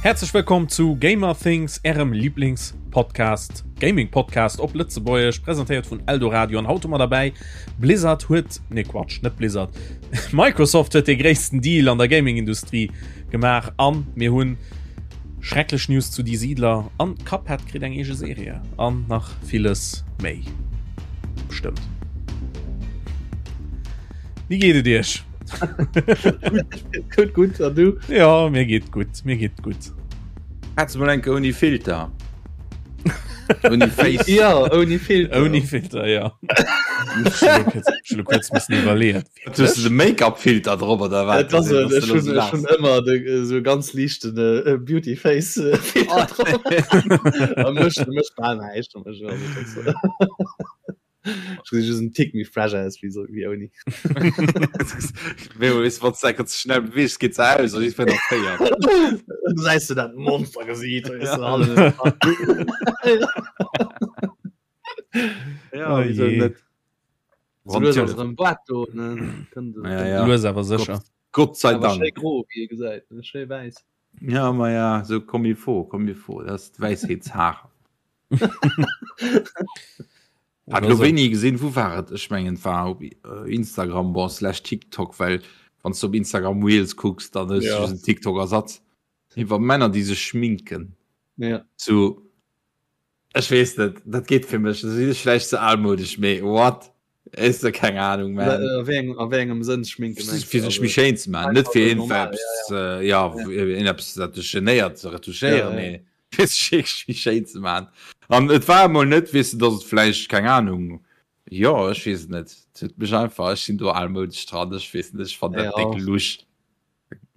Häerzlech wëllkomm zu Gamer Things, ärem Lieblings-Podcast, Gaming-Podcast op Lëtzebuergesch, presentéiert vun Eldoradio. An haut hu mer derbäi Blizzard huet, nee Quatsch, net Blizzard, Microsoft huet dee gréissten Deal an der Gaming-Industrie gemaach an mir hunn schrecklech News zu Die Siedler an Cuphead kritt eng eege Serie an nach villes méi. Bestëmmt. Wéi geet et iech? Gutt, gutt, an du? Ja, mir geet gutt, mir geet gutt. Hättest du mal enke ouni Filter? Ouni Face? Ja, ouni Filter. Ouni Filter, ja. Ech hu kuerz missen iwwerleeën. Hues du de Make-up-Filter drop oder wat? Dat ass et, ech hunn ech hunn ëmmer de esou ganz liichten Beauty Face Filter drop. A mécht mécht bal näischt. Just en Tick méi fresh aus wéi so wéi ouni. Wann ze schnell beweegst geet se aus an ich nach féier. Du säis du dat Monster gesiit Ja, wieso net? Lues awer sécher. Gott sei Dank. Schéi gro wéi ee gesäit, schéi wäiss. Ja ma ja, sou comme il faut, comme il faut, dat ass d'Wäisheetshaar. Hat lo wéini gesinn, wou war et? Ech mengen et war op Instagram, bon slash TikTok, well wann s du op Instagram Reels kucks, dann hues du just en TikTok-Ersatz iwwer Männer, déi sech schminken. Ja. Sou, ech weess net, dat geet fir mech, da sinn ech vläicht ze almoudesch, mee what? Is de keng Ahnung man. A wéi engem, a wéi engem Sënn schminken mengst du? Fir sech méi schéin ze maachen, net fir iergendwelps, ja, iergendeppes dat dech genéiert ze retuschéieren, mee fir sech wierklech méi schéin ze maachen. An et war emol net, weess de, datt et vläicht, keng Ahnung, jo, ech weess et net, et huet mech einfach, ech sinn do almoudesch dran, ech weess net, ech fannen dat déck lusch.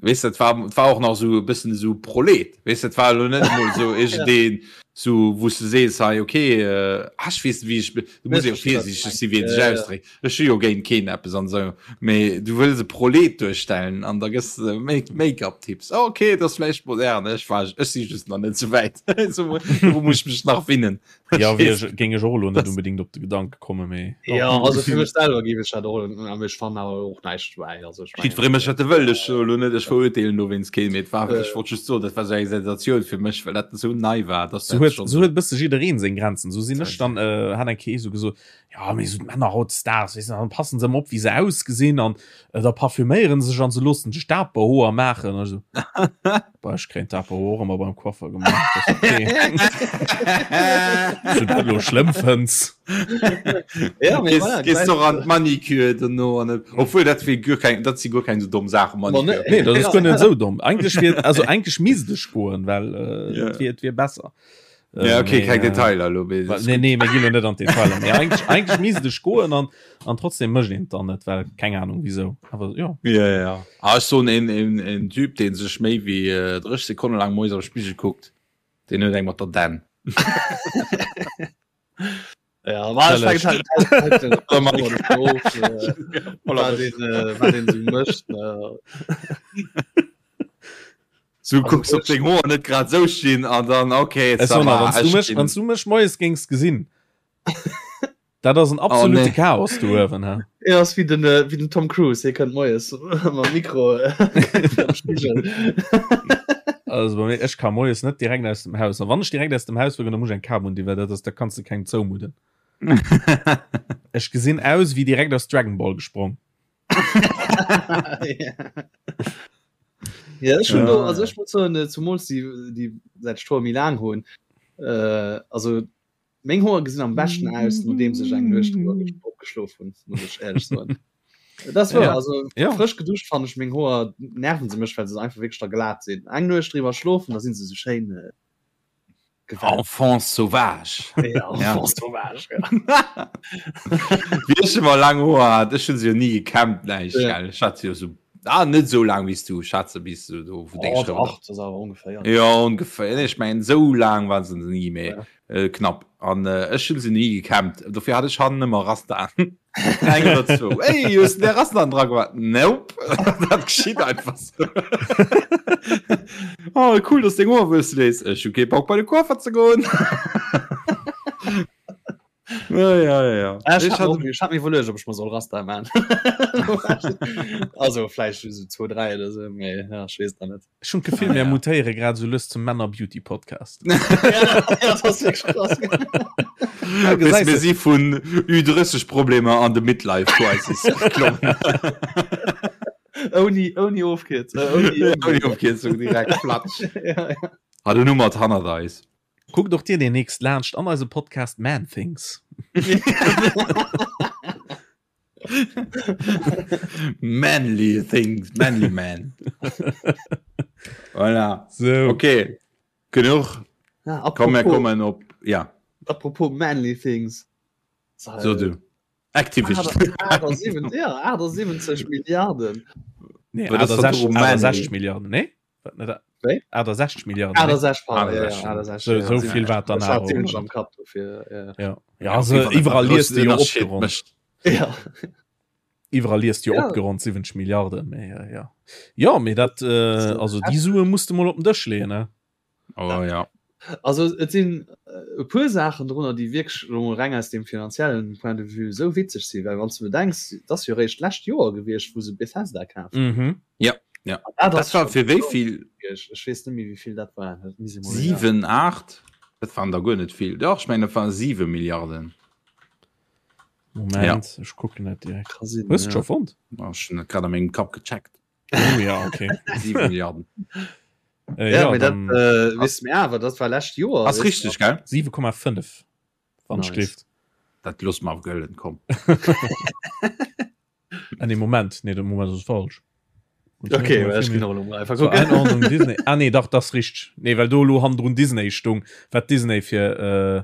Weess dat war et war och nach sou e bëssen esou Prolet. Weess dat war elo net emol sou iergendeen sou wou s de sees hei okay ah ech weess net wéi ech du muss jo virsiichteg si wéi een sech ausdréckt. Ech hu jo géint keen eppes an esou, mee du wëlls e Prolet duerstellen an da gëss de Make-up-Tipps. Okay, et ass vläicht modern, ech war ech si just nach net sou wäit. Sou do muss ech mech nach winnen. Ja, wéi ech, géing ech och elo net unbedingt op de Gedanke kommen, mee. Ja, also fir mech selwer géif ech dat och, awer ech fannen awer och näischt dobäi. Also ech mengen. Jiddweree mécht wat e wëll, ech soe elo net, ech verurteelen dowéinst keen, mee et war, ech wollt just soen, dat war esou eng Sensatioun fir mech, well dat esou nei war, dass Sou dat huet, schonn sou huet e bësse jiddereen seng Grenzen. Sou sinn ech dann, hat eng Kéier ee sou gesot, jo, mee sou d'Männer hautdesdaags, weess de, dann passen se ëmmer op, wéi se ausgesinn an da parfüméieren se sech an se loossen sech d'Aperhoer maachen. An ech sou. Bah, ech kréien d'Aperhoer och ëmmer beim Coiffer gemaach. Das ist okay. Ob du dat elo schlëmm fënns? Ja, mee voilà, Gees doch an d'Manicure dono an et, obwuel dat wier guer keng, dat si guer keng sou domm Saachen, Manicure. Nee, dat ass guer net esou domm. Eigentlech wier, also eigentlech misst ech goen, well äh, Ja. et wier, et wier besser. Ja, Äh, okay, mee, keng äh, Detailer elo, mee Wa- das ist Nee, gutt. nee, mir ginn lo net an d'Detailer. Mee eigentlech, eigentlech misst ech goen an, an trotzdem mécht een et dann net, well keng Ahnung wieso. Awer ja. Ja, ja. Ah, ech soen, een, een, een Typ, dee sech méi wéi äh, 30 Sekonne laang moies am Spigel kuckt, deen huet eng mat der Dänn. Ja, war Challenge. fänkt halt, halt, halt den of, äh, wat een, äh, wat een sou mécht. Äh, So kucks op deng Hoer net grad sou stinn an dann okay, Es ça war, va, wann du ech mech, ginn- wann du mech moies géings gesinn. Dat ass en absolute Oh, nee. Chaos do uewen, he. Ja, ass wéi den, äh, wéi den Tom Cruise, hie kënnt moies mam Mikro äh, am Spigel. Also bei mir, ech ka moies net direkt aus dem Haus. An wann ech direkt aus dem Haus wëll, dann muss ech eng Kap un, well dat ass, da kanns du kengem zoumudden. Ech gesinn aus wéi direkt aus Dragon Ball gesprong. Ja, ech hun Ja. do, also ech muss soen, äh, zumools déi, déi säit ech d'Hoer méi laang hunn, äh, also meng Hoer gesinn am beschten aus, nodeems ech eng Nuecht drüber gesch- opgeschlof hunn, muss ech éierlech soen. Das war Ja. also Ja. frësch geduscht fannen ech meng Hoer nerven se mech, well se einfach wierklech da glat sinn. Eng Nuecht driwwer schlofen, da sinn se sou schéin äh, Gewalt. Enfant sauvage. Ja, Enfant sauvage, ja. Wéi ech ëmmer laang Hoer hat, ech hunn se jo ni gekämmt, näischt, Ja. gell. Ech hat se jo sou, ah, net sou laang wéi s du, ech hat se bis sou do, wou deng Oh, Schrëft dach, das ass awer ongeféier. Ja, ongeféier. Nee, ech mengen, sou laang waren se ni, mee Ja. äh, knapp. An äh, ech hunn se ni gekämmt. Dofir hat ech hannen ëmmer Rastaen. Eng oder zwou. Ey, hues du där Rastaen dra gemaach? Nope. Dat geschitt einfach sou. Oh, cool, dass deng Hoer wuesse léiss. Ech hu kee Bock bei de Coiffer ze goen. Ja, ja, ja. Ah, ech hat ech hat mir iwwerluecht, ob ech mer soll Rasta man. Also vläicht so 2, 3 oder so, mee ja, ech weess et nach net. Ech hunn d'Gefill, mir mutéiere grad esou lues zum Männer-Beauty-Podcast. Ja, dat ass wierklech krass. Ja, gesäis Mir si vun Ü30-Problemer an de Midlife-Crisis geklommen. Ouni, ouni Ofkierzung. Äh, ouni, ouni Ofkierzung direkt platsch. Ja, ja. Hat en Nummer hannert eis. Kuckt och dir demnächst laanscht an eisem Podcast Man Things. Manly Things, Manly Man. Voilà. So. Okay. Genuch. Ja, Komm, mir apropos, kommen op. Ja, apropos Manly Things. so du. Activision. 78, ja, 78 Milliarden. Nee, Well das war 68, drum manly. 68 Milliarden, nee? Wat net? Wéi? 68 Milliarden. nee? 68, pardon, ja, ja, 68. 68, So, ja, so vill war dann Ich hat awer 70 och. am Kapp dofir, ja. Ja, ja also iwwerall liest du jo opgeronnt. Ja. Iwwerall liest du jo Ja. opgeronnt 70 Milliarden, mee äh, ja. Ja, mee dat äh, also déi Sue musst du mol op den Dësch leeën, ne? Oh ja. Also et sinn äh, e puer Saachen drunner, déi wierklech elo mol reng aus dem finanziellen Point de vue esou witzeg sinn, well wann s du bedenks, et ass jo eréischt d'lescht Joer gewiescht, wou se Bethesda kaf hunn. Mhm. Ja, ja. An dat Dat ass war schonn fir wéi esou vill? gewiescht. Ech weess net méi, wéi vill dat war. Dat misst ee mol, ja. 7, 8? Dat waren der guer net vill. Dach, ech mengen, dat waren 7 Milliarden. Moment, Ja. ech kucken dat direkt. Ka sinn, Hues du ja. scho fonnt? Oh, ech hunn dat grad a mengem Kapp gecheckt. Oh ja, okay. 7 Milliarden. Äh, Ja, ja, mee dat dann äh, weess mir awer, dat war lescht Joer, Ass weess richteg, gell? 7,5 wann Nice. ech gleeft. Dat loosse mer gëllen, komm. Ah, nee, Moment, nee, de Moment ass falsch. Okay, well ech ginn och elo mol einfach So, kucken. Einordnung Disney. Ah nee, dach, das richteg. Nee, well do elo hannendrun Disney stung, wat Disney fir äh,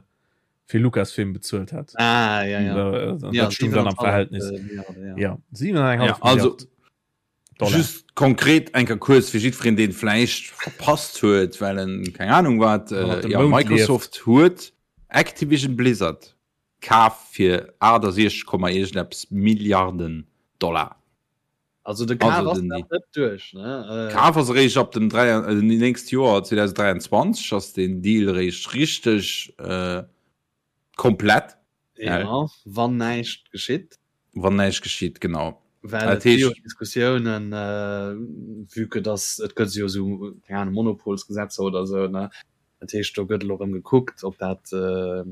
fir Lucasfilm bezuelt hat. Ah, ja, ja. Äh, dat Ja, stung dann am 7,5 Verhältnis. äh, Milliarden, ja. Ja, 7,5 Ja, also Milliarden Dollar. just konkret enker kuerz fir jiddwereen, deen vläicht verpasst huet, well en keng Ahnung wat, Hannert äh, dem ja, Mound Microsoft huet Activision Blizzard kaf fir 68, iergendeppes Milliarden Dollar. Also de Kaf Also ass den nach net duerch, ne? Äh, Kaf ass eréischt ab dem 3, äh, nächst Joer 2023 ass den Deal eréischt richteg äh, komplett, ja, wann näischt geschitt. wann näischt geschitt, genau. Well Dat et gi jo heescht- Diskussiounen, äh, vue que dass et gëtt jo esou, keng Ahnung, Monopolsgesetzer oder esou, ne? Dat heescht, do gëtt elo erëm gekuckt, ob dat äh,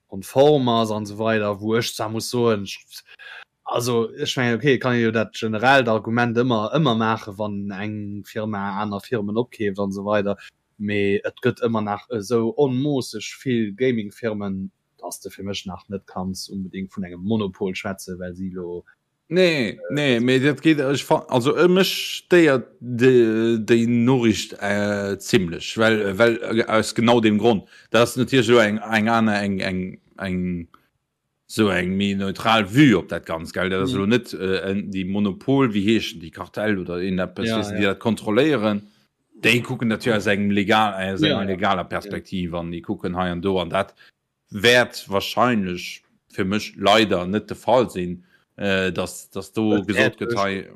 konform ass an esou weider, wou ech zwar muss soen, ech, also ech mengen, okay, et kann ee jo dat generellt Argument ëmmer, ëmmer maachen, wann eng Firma aner Firmen opkeeft an esou weider, mee et gëtt ëmmer nach esou onmoosseg vill Gaming-Firmen, dass de fir mech nach net kanns unbedingt vun engem Monopol schwätzen, well si elo Nee, nee, mee dat geet, ech fa-, also mech stéiert déi Noriicht zimlech, well, well aus genau deem Grond. Dat ass natierlech elo eng, eng aner, eng, eng, eng esou eng méi neutral Vue op dat Ganzt, gell. Dat ass elo net déi Monopol, wéi heeschen déi, Kartell oder iergendeppes, weess de, déi dat kontrolléieren. Déi kucken dat jo aus engem legal, aus enger legaler Perspektiv an déi kucken hei an do an dat wäert wahrscheinlech fir mech leider net de Fall sinn, dass, dass do gesot gëtt hei,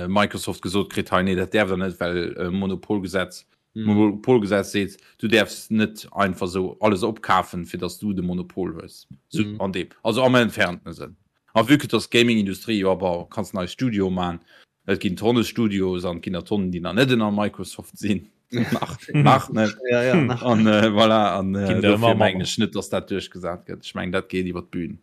Microsoft gesot kritt hei, nee dat däerft der net, well Monopolgesetz, Monopolgesetz seet, du däerfs net einfach esou alles opkafen, fir dass du de Monopol hues. Sou an deem, also am entfernten Sënn. A vue que dass d'Gaming-Industrie jo awer kanns nei Studioe man, Et ginn Tonne Studios an et ginn der Tonnen, déi nach net ënner Microsoft sinn. Nach, nach net. Ja, ja, nach. An äh, voilà, an äh, Ginn der dofir ëmmer mengen ech net, dass dat duerchgesat gëtt. Ech mengen, dat geet iwwer d'Bühn.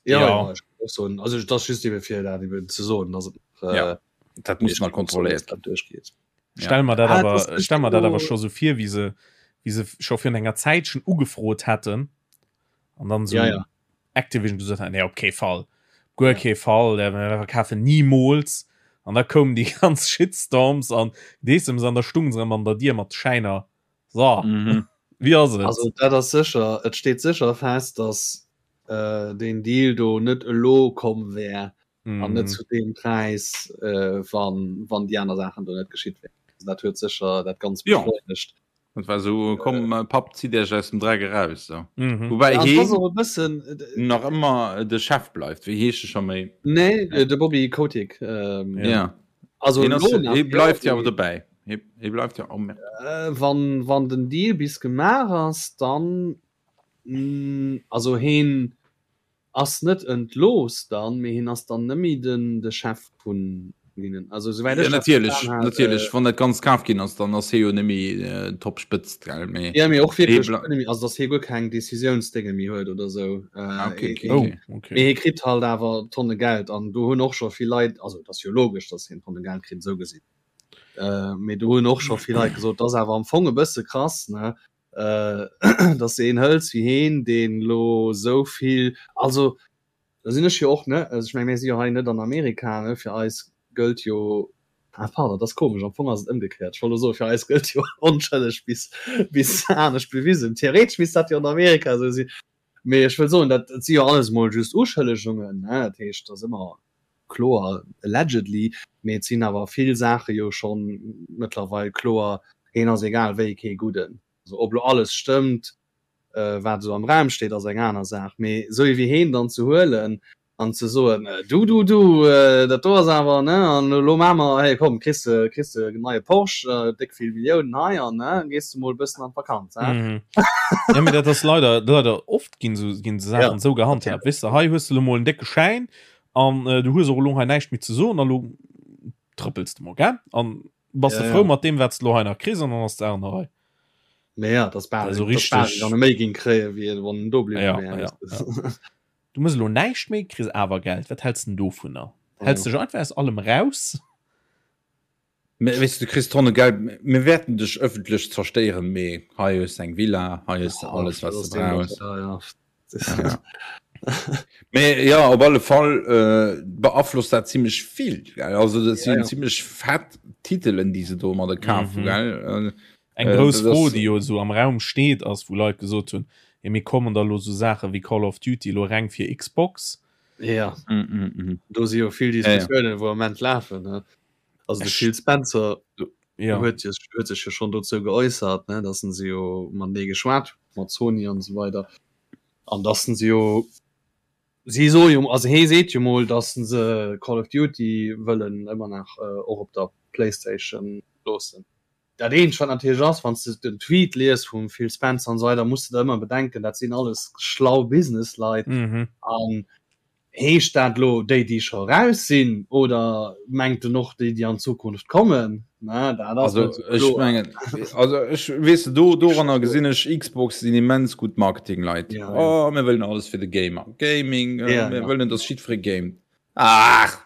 Ja, Ja. ja, ech kann och soen, also dat ass just eben fir dat eben ze soen, dass et nach, Ja, äh, dat muss nach kontrolléiert dat duerchgeet. Ja. Stell mer dat Ah, awer, das ist stell mer dat awer jo- scho sou vir, wéi se, wéi se scho virun enger Zäitchen ugefrot hätten an dann sou Ja, ja. Activision gesot hat, nee, op kee Fall, guer kee Fall, äh, mir verkafen niemools. An da koumen déi ganz Shitstorms an Deessems an da stung se erëm an der Dier mat Schäiner. So, Mhm. wéi ass et? Also dat ass sécher, et steet sécher fest, dass äh, deen Deal do net elo komm wär an net Mhm. zu deem Präis, äh, wann, wann déi aner Saachen do net geschitt wären. Also dat huet sécher dat Ganzt Ja. beschleunegt. Dat war so, komm äh, Papp, zitt Iech aus dem Dreck eraus. So. Mhm. Wobei Ja, et ass heen och e bëssen, äh, nach ëmmer de Chef bleift. Wéi heescht e scho méi? nee, äh, de Bobby Kotick. Ähm, Ja. ja. Also Heen ass, elo nach, hee bleift jo, jo awer dobäi. Hee, hee bleift jo. Oh, merde. Äh, wann, wann den Deal bis gemaach ass, dann. Mm, also heen ass net entlooss dann, mee hien ass dann net méi den de Chef vun hinnen. Also souwäit Ja, ech dat natierlech, verstan hat, natierlech. äh, Wann dat Ganzt kaf ginn ass, dann ass hie jo net méi äh, Top-Spëtzt, gell? Mee Ja, mee och hie wierklech bla net méi, also dass hie guer keng Decisiounsdénge méi huet oder sou. Äh, Ah, okay, hie, okay, hie, Oh, okay. okay. mee hie kritt halt awer Tonne Geld an do hunn och scho vill Leit, also et ass jo logesch, dass hien Tonne Geld kritt, esou gesinn. Äh, mee do hunn och scho vill Leit gesot, dat ass awer am Fong e bësse krass, ne? Äh, dass de een hëls wéi heen, deen elo esou vill, also da sinn ech jo och, ne, also ech meng, mir si jo hei net an Amerika, ne, fir eis gëllt jo, ah pardon, dat ass komesch, am Fong ass et ëmgekéiert, ech wollt elo soen, fir eis gëllt jo onschëlleg bis, bis anescht bewisen, theoretesch misst dat jo an Amerika esou sinn, mee ech wëll soen, dat si jo alles mol just Uschëllegungen, ne, dat heescht, et ass ëmmer kloer allegedly, mee et sinn awer vill Saache jo schonn mëttlerweil kloer, heen ass egal wéi kee Gudden. Also ob lo alles stëmmt, wat esou am Raum steet, ass eng aner Saach, mee esou ee wéi heen dann ze huelen an ze soen, du, du, du, dat do ass awer, ne, an elo maache mer, hey komm, kriss de, kriss de en neie Porsche, déck vill Milliounen hei an, ne, gees de mol e bëssen an d'Vakanz, he. Jo, mee dat ass leider, leider oft ginn esou, ginn esou Saachen esou gehandhaabt, weess de, hei hues de elo mol en décke Schäin An äh, du hues och elo hei näischt méi ze soen, a lo trëppels de mol, gell? An bass Ja, de frou ja. mat deem, wat s de lo hei nach kriss, an dann ass d'Saach an der Rei. Mee ja, das bal, Also das bal richtig. dann méi ging kréie wéi wann en do bliwwe Ja, wär. ja, ja. Du muss elo näischt méi, kriss awer Geld. Wat häls den dovunner? Häls Ja. dech einfach aus allem raus? Mä weess du, du kriss Tonne Geld, mir wäerten dech ëffentlech zerstéieren, mee hei hues de eng Villa, hei hues de alles, wat s de brauchs. Ja, ja. Ja. Mee ja, op alle Fall äh, beaflosst dat zimmlech vill. Gell? Also dat sinn Ja, ja. zimmlech fett Titelen, déi se domadder kafen, Mhm. gell? Eng Äh, grouss dat Fro, ass- déi jo esou am Raum steet, ass, wou Leit gesot hunn, jo mir kommen da lo sou Saache wéi Call of Duty elo reng fir Xbox. Ja, Äh, mm, mm, mm. do si jo vill Ja, ja. Diskussiounen, wou am Moment lafen. Ne? Also de Phil Spencer ja. huet huet sech jo schonn dozou geäussert, ne, datt en se jo matenee geschwat huet mat Sony an esou weider an datt en se jo si soe jo also hee seet jo mol, datt en se Call of Duty wëllen ëmmer nach äh, och op der Playstation loossen. Dat eenzegt wat natierlech ass, wann s de den Tweet lies vum Phil Spencer an esou weider, muss de der ëmmer bedenken, dat sinn alles schlau Businessleit mhm. an Heescht dat elo déi, déi scho raus sinn, oder mengt en och déi, déi an Zukunft kommen? Na, dat ass Also net sou ech kloer. mengen, also ech weess de, do doranner gesinn ech Xbox sinn immens gutt Marketingleit. Ja, ja. Oh, mir wëllen alles fir de Gamer. Gaming, äh, Ja, mir ja. wëllen, dass jiddweree gamet. Ach!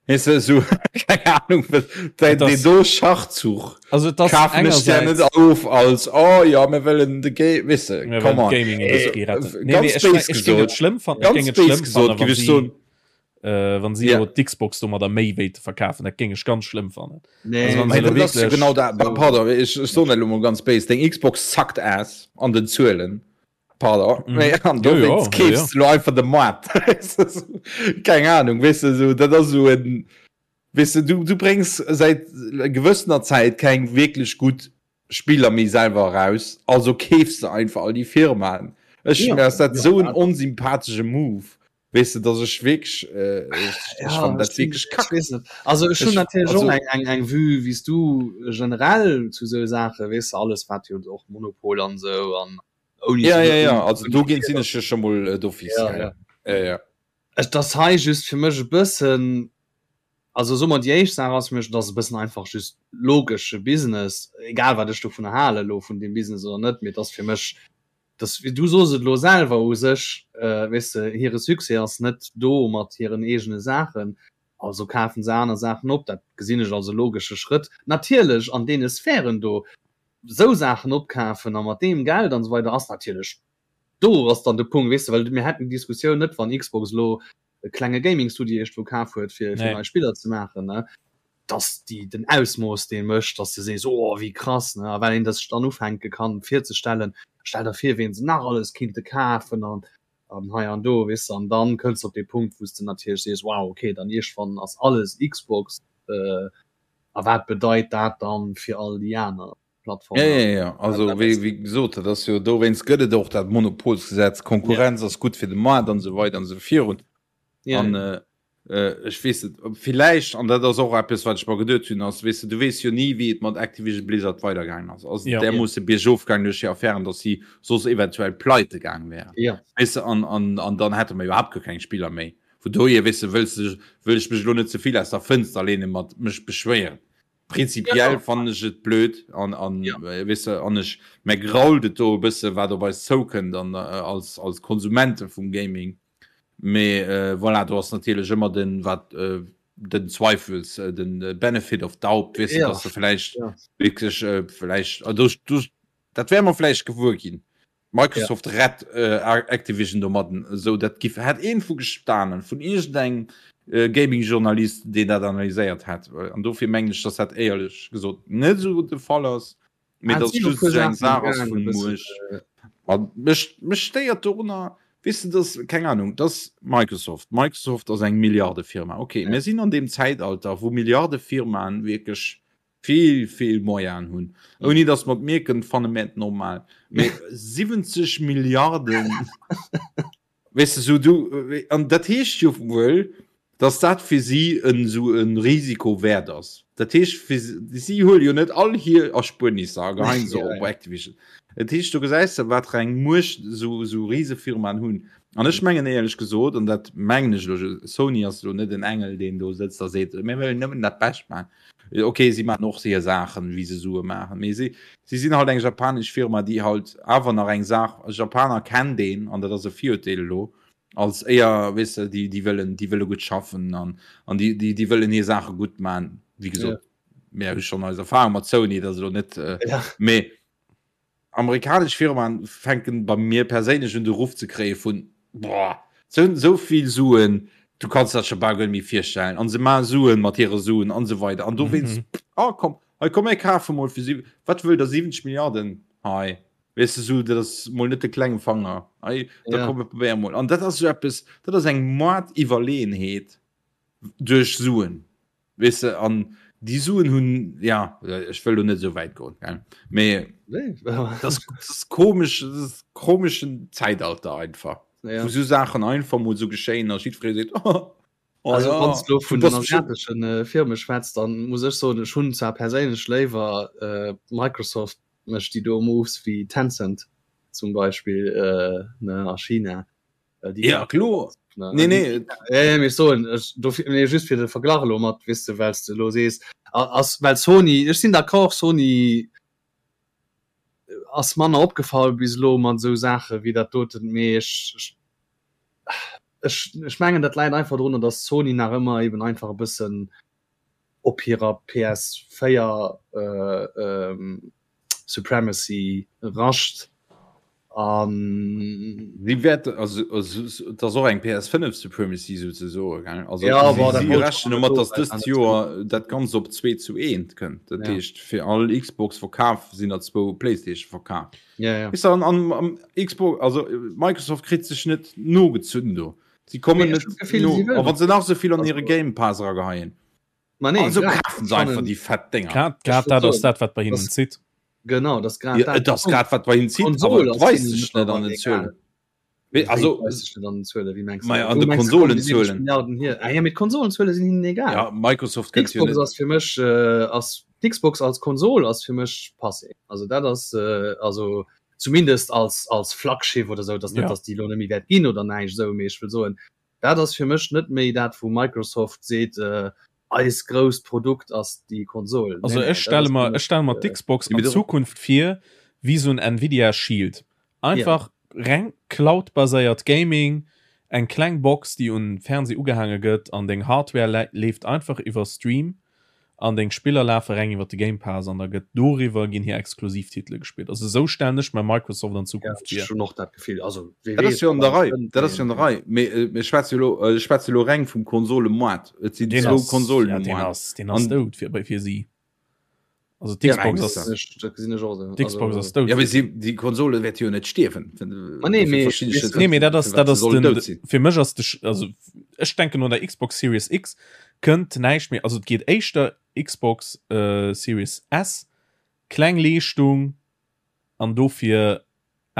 Weess de, esou, keng Ahnung, wat, deen, Et ass- deen do Schachzuch Also et ass kafen ech der net engersäits of als, oh ja, mir wëllen de Ga-, weess de, mir come wëllen on. d'Gaming-Industrie Also, retten. Nee, ganz nee, ech, béis ech géing et gesot, schlëmm fannen, ech ganz géing et béis schlëmm gesot, fannen, géif wann ech si soen, äh, wann si Ja. elo d'Xbox domadder méi wéilte verkafen, dat géing ech ganz schlëmm fannen. Nee, Also wann Mee se elo dat ass jo wierklech genau dat, pardon, ech, ech soen dat elo mol ganz béis, deng Xbox sucked ass an den Zuelen. Pardon, Mhm. mee an Jo, jo, dowéinst jo, jo. keefs du lo einfach de Moart. Keng Ahnung, weess de, sou, dat ass sou en, weess de, du, du bréngs säit gewëssener Zäit keng wierklech gutt Spiller méi selwer eraus, also keefs de einfach all déi Firmaen. Ech, Ja, mir ass dat ja, sou en dat- onsympathesche Move. Weess de, dass ech wierklech, äh, ech, ech Ja, fannen dat ech sinn- wierklech ech kack. weess net. Also ech hunn Ech, natierlech och also, eng, eng, eng Vue wéi s du generell zu sou Saache, weess de, alles wat jo och Monopol an sou an ouni ja, ze ja, ja, ouni also ouni dogéint sinn ech jo scho mol äh, d'office, ja, gell. ja. Ja, ja. Et ass hei just fir mech e bëssen, also soe mer déi éischt Saach ass fir mech, et ass e bëssen einfach just logesche Business, egal wat ech dovunner hale lo vun deem Business oder net, mee et ass fir mech dass, du sos et elo selwer u sech, weess de, hire Succès ass net do mat hiren eegene Saachen, also kafen se aner Saachen op. Dat gesinn ech als e logesche Schrëtt. Natierlech an deene Sphären do esou Saachen opkafen a mat deem Geld an esou weider ass natierlech, do ass dann de Punkt, weess de, well mir hätten déi Diskussioun net, wann Xbox elo e klenge Gaming-Studio iergendwou kaf huet, fir Nee. nei Spiller ze maachen, ne, dass déi den Ausmooss dee mécht, dass de sees, oh wéi krass, ne, a well een dat sech dann ufänke kann virzestellen, stell der vir ween se nach alles kinnte kafen an an hei an do, weess de, an dann kënns de op dee Punkt wou s de natierlech sees, wow, okay, dann iergendwann ass alles Xbox, a wat bedeit dat dann fir all déi aner Plattformen? Ja, ja, ja. Also wéi, wéi gesot, dat ass jo dowéinst gëtt et och dat Monopolsgesetz, Konkurrenz ass gutt fir de Maart an esou weider an esou virun. Ja, An ja. Ech weess net, villäicht, an dat ass och eppes, wat ech mer geduet hunn, ass, weess de, du weess jo ni, wéi et mat Activision Blizzard weidergaangen ass. Ass et Ja. därmoosse biergof gaangen duerch déi Affären, datt si soss eventuell pleite gaang wären? Ja. Weess de, an, an, an dann hätte mer iwwerhaapt guer keng Spiller méi. Vun dohier, weess de, wëlls de, wëll ech mech elo net ze vill aus der Fënster leene mat mech beschwéieren. Prinzipiell Ja. fannen ech et blöd an, an, Ja. weess de, an ech, mär grault et do e bësse wat op eis zoukënnt an als, als Konsumente vum Gaming. Mee voilà, do ass natierlech ëmmer den, wat den Zweifels, den Benefit of doubt, weess de, Ja. dass se vläicht Ja. wierklech vläicht, do, do, dat wäerte mer vläicht gewuer ginn. Microsoft Ja. rett Activision domadden, esou dat giff, hätt een vu gestanen, vun iergendengem Gaming-Journalist, deen dat analyséiert hätt. An dofir mengen ech, dass dat éierlech gesot net esou de Fall ass. Mee Ah, dass sinn och just puer esou eng Saachen Saach ass gaangen, e vun bëssen, Muecht. A mech, mech stéiert dorunner, weess de, dass, keng Ahnung, dass Microsoft, Microsoft ass eng Milliardefirma, okay, Ja. mir sinn an deem Zäitalter, wou Milliardefirmaen wierklech vill, vill Moyenen hunn, ouni dass mer et mierken, fanne mir et normal. Mee 70 Milliarden, Weess de, sou du, an dat heescht jo wuel, dass dat fir si en esou e Risiko wäert ass. Dat heescht fir si huele jo net all hir Erspuernisser a geheien se op Activision. Dat heescht, do gesäis de wat fir eng Muecht esou esou Risefirmaen hunn. An ech mengen éierlech gesot, an dat mengen ech elo, Sony ass elo net en Engel, deen do sëtzt a seet, mir wëllen nëmmen dat Bescht maachen. Ok, si maachen och hir Saachen, wéi se Sue maachen, mee si, si sinn halt eng japanesch Firma, déi halt awer nach eng Saach, Japaner kennt een, an dat ass e Virurteel elo, als éier, weess de, déi, déi wëllen, déi wëlle gutt schaffen an, an déi, déi, déi wëllen hir Saache gutt maachen. Wéi gesot, mir hu schonn eis Erfahrung mat Sony, dat ass elo net, mee Amerikanesch Firmaen fänken bei mir perséinlech un de Ruff ze kréie vun boah, se hunn esou vill Suen, du kanns dat scho bal guer net méi virstellen an se maache Suen mat hire Suen an esou weider an dowéinst, mm oh komm, hei komm mir kafe mol fir si, wat wëllt der 70 Milliarden hei, weess de, sou dat ass mol net de klenge Fanger, hei da komm mir probéiere mol an dat ass esou eppes, dat ass eng Moardiwwerleeënheet duerch Suen. Weess de, an déi Suen hunn, ja, ech wëll do net esou wäit goen, gell, mee dat ass, dat ass komesch, dat ass komeschen Zäitalter einfach, Ja. wou esou Saachen einfach mol esou geschéien a jiddweree seet, oh, oh Also ja, wann s du du vun den bass bestimmt. asiateschen äh, Firme schwätzt, dann muss ech soen, ech hunn zwar perséinlech léiwer äh, Microsoft mécht déi do Moves wéi Tencent zum Beispill äh, ne, a China. Äh, déi Ja, kloer. Ne? Nee, nee. Ja, ja, soen ech dofir nee, just fir de Verglach elo mat weess de wells de lo sees ass well Sony ech sinn d'accord Sony ass manner opgefall bis elo mat esou Saache wéi dat doten mee ech ech ech mengen dat läit einfach drunner datt Sony nach ëmmer eben einfach e bëssen op hirer PS4 äh, ähm, Supremacy rascht an Si wäert also et ass och eng PS5 Supremacy souzesoe gell also ja, si, boah, si rechnen domat datt dëst Joer dat Ganzt op 2 zu 1 kënnt. Dat ja. heescht fir all Xbox verkaf sinn der zwou PlayStation verkaf. Ja, ja. Is an, an, an Xbox also Microsoft kritt sech net nogezunn do. Si kommen net no a wann se nach esou vill an hire Game Pass erageheien. Ma nee, also grad, kafen se einfach déi fett Dénger. Grad, grad dat ass dat, wat bei hinnen zitt. Genau, das grad Ja, dat. et ass grad wat bei hinnen zitt, Konsol awer et ass weist hinnen sech net an mittlerweile den Zuelen. egal. Mee also, Wéi weist sech net an den Zuelen? Wéi mengs du? Ma ja, an Wou de mengs du, kommen déi 70 Konsolenzuelen. Milliarden hier? Ah ja, mee d'Konsolenzuele sinn hinnen egal. Ja, Microsoft kënnt jo D'Xbox net. ass fir mech, äh, ass, d'Xbox als Konsol ass fir mech passé. Also dat ass, äh, also zumindest als, als Flaggschiff oder sou, dass net, Ja. dass déi elo net méi wäert ginn oder näischt esou, mee ech wëll soen, Dat ass fir mech net méi dat wou Microsoft seet eis grousst Produkt ass déi Konsol. Also ech stelle mer ech stelle mer d'Xbox an Zukunft vir wéi sou en Nvidia Shield. Einfach reng Cloud-baséiert Gaming, eng kleng Box déi un Fernseh ugehaange gëtt an deng Hardware leeft einfach iwwer Stream An deng Spiller lafe reng iwwer de Game Pass an da gëtt doriwwer ginn hir Exklusivtitele gespillt. Also esou stellen ech mer Microsoft an Zukunft vir. Ja, ech hunn och dat Gefill. Also wee weess. Dat ass jo an der Rei, dat ass jo an der Rei. Mee mir schwätze jo elo, ech schwätze elo reng vum Konsolemoart. Et sinn zwou Konsolen um Moart. Deen ass dout fir bei fir si. Also d'Xbox ass, dat gesinn ech och esou. D'Xbox ass dout. Ja mee si, déi Konsole wäerte jo net stierwen. Ma nee, mee Nee, mee dat ass, dat ass den, fir mech ass de, also ech denken no der Xbox Series X kënnt näischt méi, also et geet éischter Xbox Series S, kleng Leeschtung an dofir.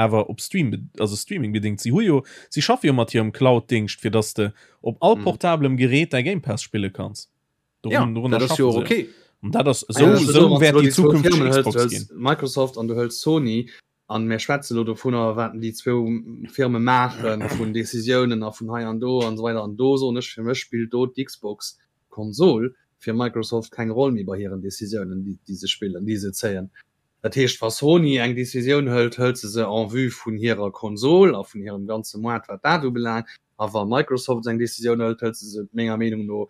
Awer op Stream, also Streaming bedingt. Si hu jo, si schaffe jo mat hirem Cloud-Dingscht, fir dass de op all mhm. portablem Gerät däi Game Pass spille kanns. Dorun, ja, dat ass jo okay. Und dat ass so, ja, so wäert déi zukünfteg Xbox ginn. Microsoft an du hëls Sony an mir schwätze lo dovunner wat déi zwou Firme maachen vun Decisiounen a vun hei an do an so weiter an do soen ech fir mech spillt do d'Xbox Konsol fir Microsoft keng Roll méi bei hiren Decisiounen déi déi se spillen déi se zéien. Dat heescht wa Sony eng Decisioun hëlt, hëlt se se en vue vun hirer Konsol a vun hirem ganze Moart wat dat ubelaangt a wa Microsoft eng Decisioun hëlt, hëlt se se menger Meenung no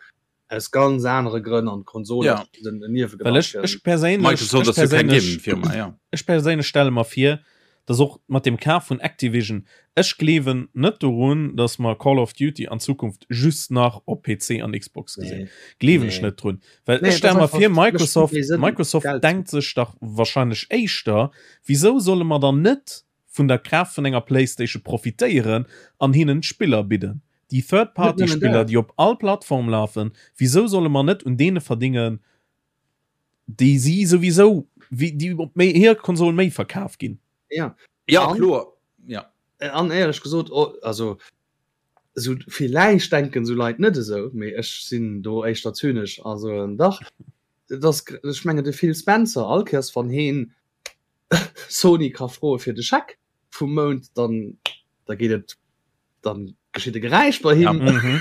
aus ganz anere Grënn an d'Konsol Ja. ass en Well Niewegedanken. ech, ech perséinlech, Microsoft ech ass jo keng perséinlech, Gaming-Firma, ja. ech perséinlech stelle mer vir, dass och mat dem Kaf vun Activision, ech gleewen net dorun, dass mer Call of Duty an Zukunft just nach op PC an Xbox gesinn. Nee. Gleewen ech Nee. net drun. Well Nee, ech et stelle ass mer einfach, vir, mécht méi Microsoft, Sënn, Microsoft Geld ze denkt sech dach wahrscheinlech éischter, wisou solle mer dann net vun der Kraaft vun enger Playstation profitéieren an hinnen d'Spiller bidden? Déi Net nëmmen Third-Party-Spiller, dat. déi op all Plattform lafen, wisou solle mer net un deene verdingen, déi si souwisou, wéi déi op méi hir Konsol méi verkaf ginn? Ja. Ja, An, kloer. Ja. an éierlech gesot, oh, also esou villäicht denken esou Leit net esou, mee ech sinn do éischter zynesch a soen dach, et ass, ech mengen de Phil Spencer, all Kéiers wann heen Sony ka froe fir de Scheck vum Mount, dann da geet et, dann geschitt e Geräisch bei Ja. him. Mhm.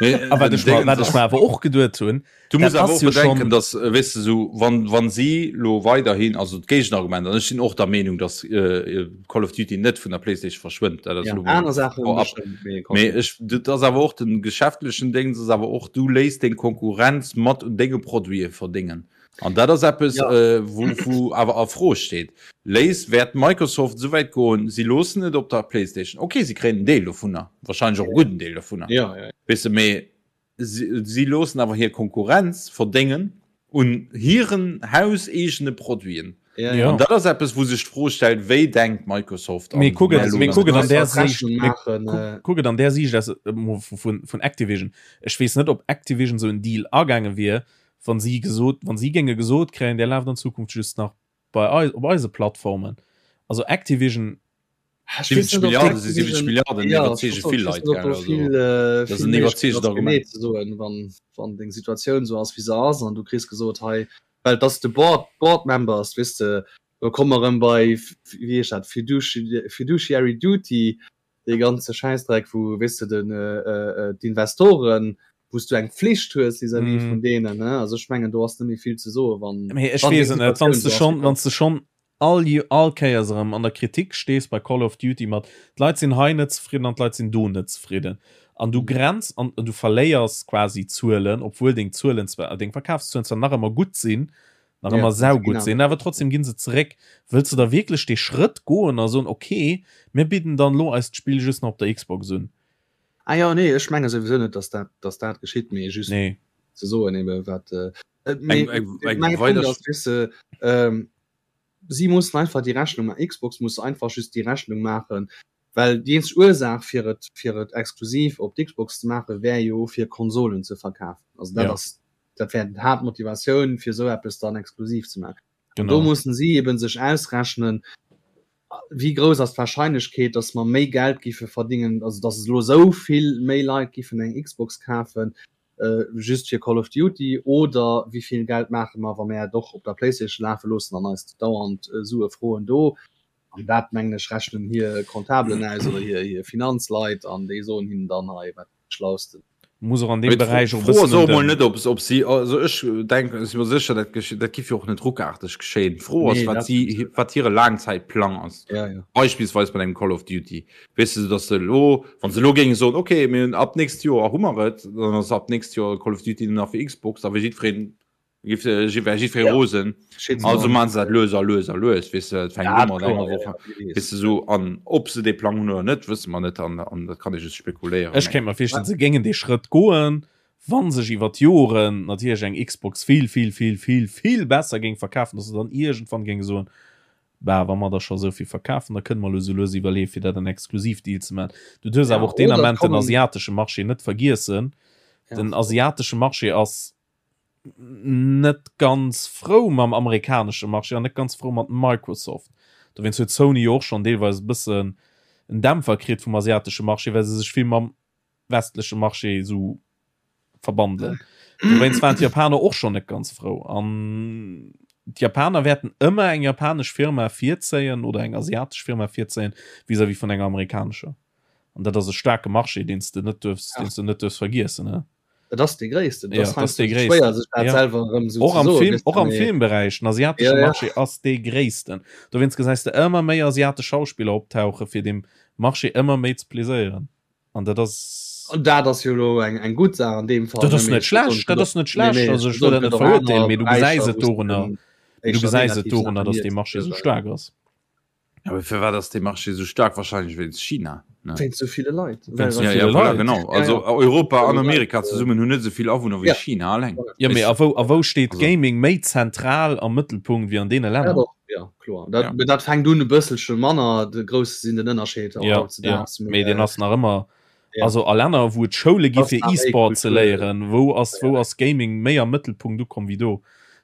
Mee A wat den ech mer, Déngens wat ech ass, mer awer och geduet hunn, du dat muss awer ass och jo bedenken, schonn, dass, äh, weess de, sou, wann, wann si lo weiderhin, also d'Géigenargument, an ech sinn och der Meenung, dass äh, Call of Duty net vun der PlayStation verschwënnt, dat ass Ja, lo mol aner Saachen vorab. bestëmmt, mee Mee komm. ech, dat ass awer och den geschäftlechen Déngens ass awer och, du léiss deng Konkurrenz mat un denge Produite verdéngen. An dat ass eppes, Ja. äh, wou, wou awer a Fro steet. Léis, wäert Microsoft esouwäit goen, si loossen et op der PlayStation. Okay, si kréien en Deel dovunner, wahrscheinlech och e gudden Deel dovunner, Ja, ja. weess de, mee si, si loossen awer hir Konkurrenz verdéngen un hiren hauseegene Produiten. Ja, Ja. An dat ass eppes, wou sech d'Fro stellt, wéi denkt Microsoft Mee an kuck wéi et, mee loossen kuck et se an dat? där Einfach Siicht, d'Rechnung mee maachen, kuck, äh, kuck et an där Siicht aus, äh, mo vu, vun, vun Activision. Ech weess net, ob Activision esou en Deal agaange wier, wann si gesot, wann si géinge gesot kréien, där laaft an Zukunft just nach bei eis, op eise Plattformen. Also Activision. Ech weess 70 net, ob Milliarden si 70 d'Activision, Milliarden, ja, ech iwwerzeege wollt soen, vill ech weess Leit, net, ob gell? do Also vill, äh, dat ass vill en méiglech iwwerzeegend ass, genee Argument. ze soen, wann, wann deng Situatioun esou ass, wéi se ass, an du kriss gesot, hei, well et ass de Board, Board Members, weess de, do komme mer erëm bei, wéi heescht dat, Fiduci-, Fiduciary Duty, dee ganze Schäissdreck, wou, weess de, den, d'Investoren, wou s du eng Pflicht hues vis-à-vis vun deenen, ne? Also ech mengen, do ass net méi vill ze soen, wann, Mee ech wann déi weess et net, wann Situatioun s de esou ass, schonn, wéi wann s de schonn all, all Kéiers erëm an der Kritik stees bei Call of Duty mat, d'Leit sinn hei net zefridden an d'Leit sinn do net zefridden an du grenz an du verléiers quasi Zuelen, obwuel deng Zuelen zwar, deng Verkafszuelen zwar nach ëmmer gutt sinn, nach Ja, ëmmer se ginn saugutt awer sinn, awer trotzdem ginn se zeréck. Wëlls de da wierklech dee Schrëtt goen a soen, okay, mir bidden dann elo eist Spill just nach op der Xbox un? Ah jo, nee, ech menge souwisou net, dass dat, dass dat geschitt, mee just Nee. ze soen ebe wat, mee Eng, eng, eng mäi Punkt weider ass, weess de, ähm, si mussen einfach déi Rechnung maachen, Xbox muss einfach just déi Rechnung maachen, well déi eenzeg Ursaach fir et, fir et exklusiv op d'Xbox ze maachen, wär jo fir Konsolen ze verkafen. Also dat Ja. ass, dat wär d'Haaptmotivatioun fir esou eppes dann exklusiv ze maachen. An do Genau. mussen si eben sech ausrechnen, wéi grouss ass d'Wahrscheinlechkeet, datt mer méi Geld giffe verdingen, also datt elo esou vill méi Leit giffen eng Xbox kafen, just fir Call of Duty, oder wéi vill Geld maache mer, wa mer et och op der PlayStation lafe loossen an eis dauernd Sue froen do. An dat, mengen ech, rechnen hir Comptabelen aus oder hir Finanzleit an déi soen hinnen dann hei, wat dat Schlausten. Muss och an deem Beräich och e D'Fro ass bëssen och un emol den. net, ob ob si, also ech denken, ech si mer sécher, dat geschitt, dat giff jo och net ruckaarteg geschéien. D'Fro ass, Nee, wat dat si, sowieso. wat hire Laangzäitplang ass. Ja, ja. Beispillsweis bei engem Call of Duty. Weess de, datt se elo, wa se elo géinge soen, okay, mir hunn ab nächst Joer hu mer et, dann ass ab nächst Joer Call of Duty nëmmen nach fir Xbox, da wier jiddwereen Giff äh, wär jiddweree Ja. rosen. Shit, Also Mann. man se dat lues a lues a lues, weess de, et fänkt Ja, u mat kloer, enger ja, Woch, ja, wie weess. weess de sou. An ob se dee Plang hunn oder net, wësse mer net an, an dat kann ee just spekuléieren. Ech Mee kéint mer virstellen, se géingen dee Schrëtt goen, wa sech iwwer d'Joren natierlech eng Xbox vill, vill, vill, vill, vill besser géing verkafen, dass se dann iergendwann géinge soen, Bah, wa mer der scho esou vill verkafen, da kënne mer elo esou lues iwwerleeën, fir dat en Exklusivdeal ze maachen. Du duerfs Ja, awer och deen oder et Ament den kommen. asiatesche Marché net vergiessen. Ja. Den asiatesche Marché ass net ganz frou mam amerikanesche Marché an net ganz frou mat Microsoft. Dowéinst huet Sony jo och schonn deelweis e bëssen en Dämpfer kritt vum asiatesche Marché, well se sech vill mam westleche Marché esou verbandelen. Dowéinst waren d'Japaner och schonn net ganz frou. An d'Japaner wäerten ëmmer eng japanesch Firma virzéien oder eng asiatesch Firma virzéien vis-à-vis vun enger amerikanescher. An dat ass e staarke Marché, deen s de net duerfs, deen s de net duerfs vergiessen, ne? Et ass dee gréissten. Ja, et ass dee gréissten. Schwéier sech dat ja. selwer erëm sou och am Film, och am Filmberäich, den asiatesche ja, ja. Marché ass dee gréissten. Dowéinst gesäis de ëmmer méi asiatesch Schauspiller optauche fir dem Marché ëmmer méi ze pleséieren. An dat ass. An dat ass jo elo eng eng gutt Saach an deem Fall. Dat ass net schlecht, dat ass net schlecht. Nee, nee, also ech wëll dat net verurteelen, mee du gesäis et dorunner, du gesäis et dorunner, datt dee Marché sou staark ass. Ja, awer firwat ass dee Marché sou staark? Wahrscheinlech wéinst China, ne? Wéinst sou ville Leit. Wéinst sou ville Leit. Genau. Also Europa an Amerika zesummen hunn net sou vill Awunner wéi China alleng. Jo, mee a wou, a wou steet Gaming méi zentral am Mëttelpunkt wéi an deene Länner? Ja, doch, ja, kloer. Dat, ja. dat fänkt un e bësselche manner de grouss sinn den Ënnerscheed ja, ja. Mee deen ass nach ëmmer ja. also a Länner wou et Schoule gi fir E-Sport ze léieren, wou ass ja. wou ass Gaming méi am Mëttelpunkt ukomm wéi do.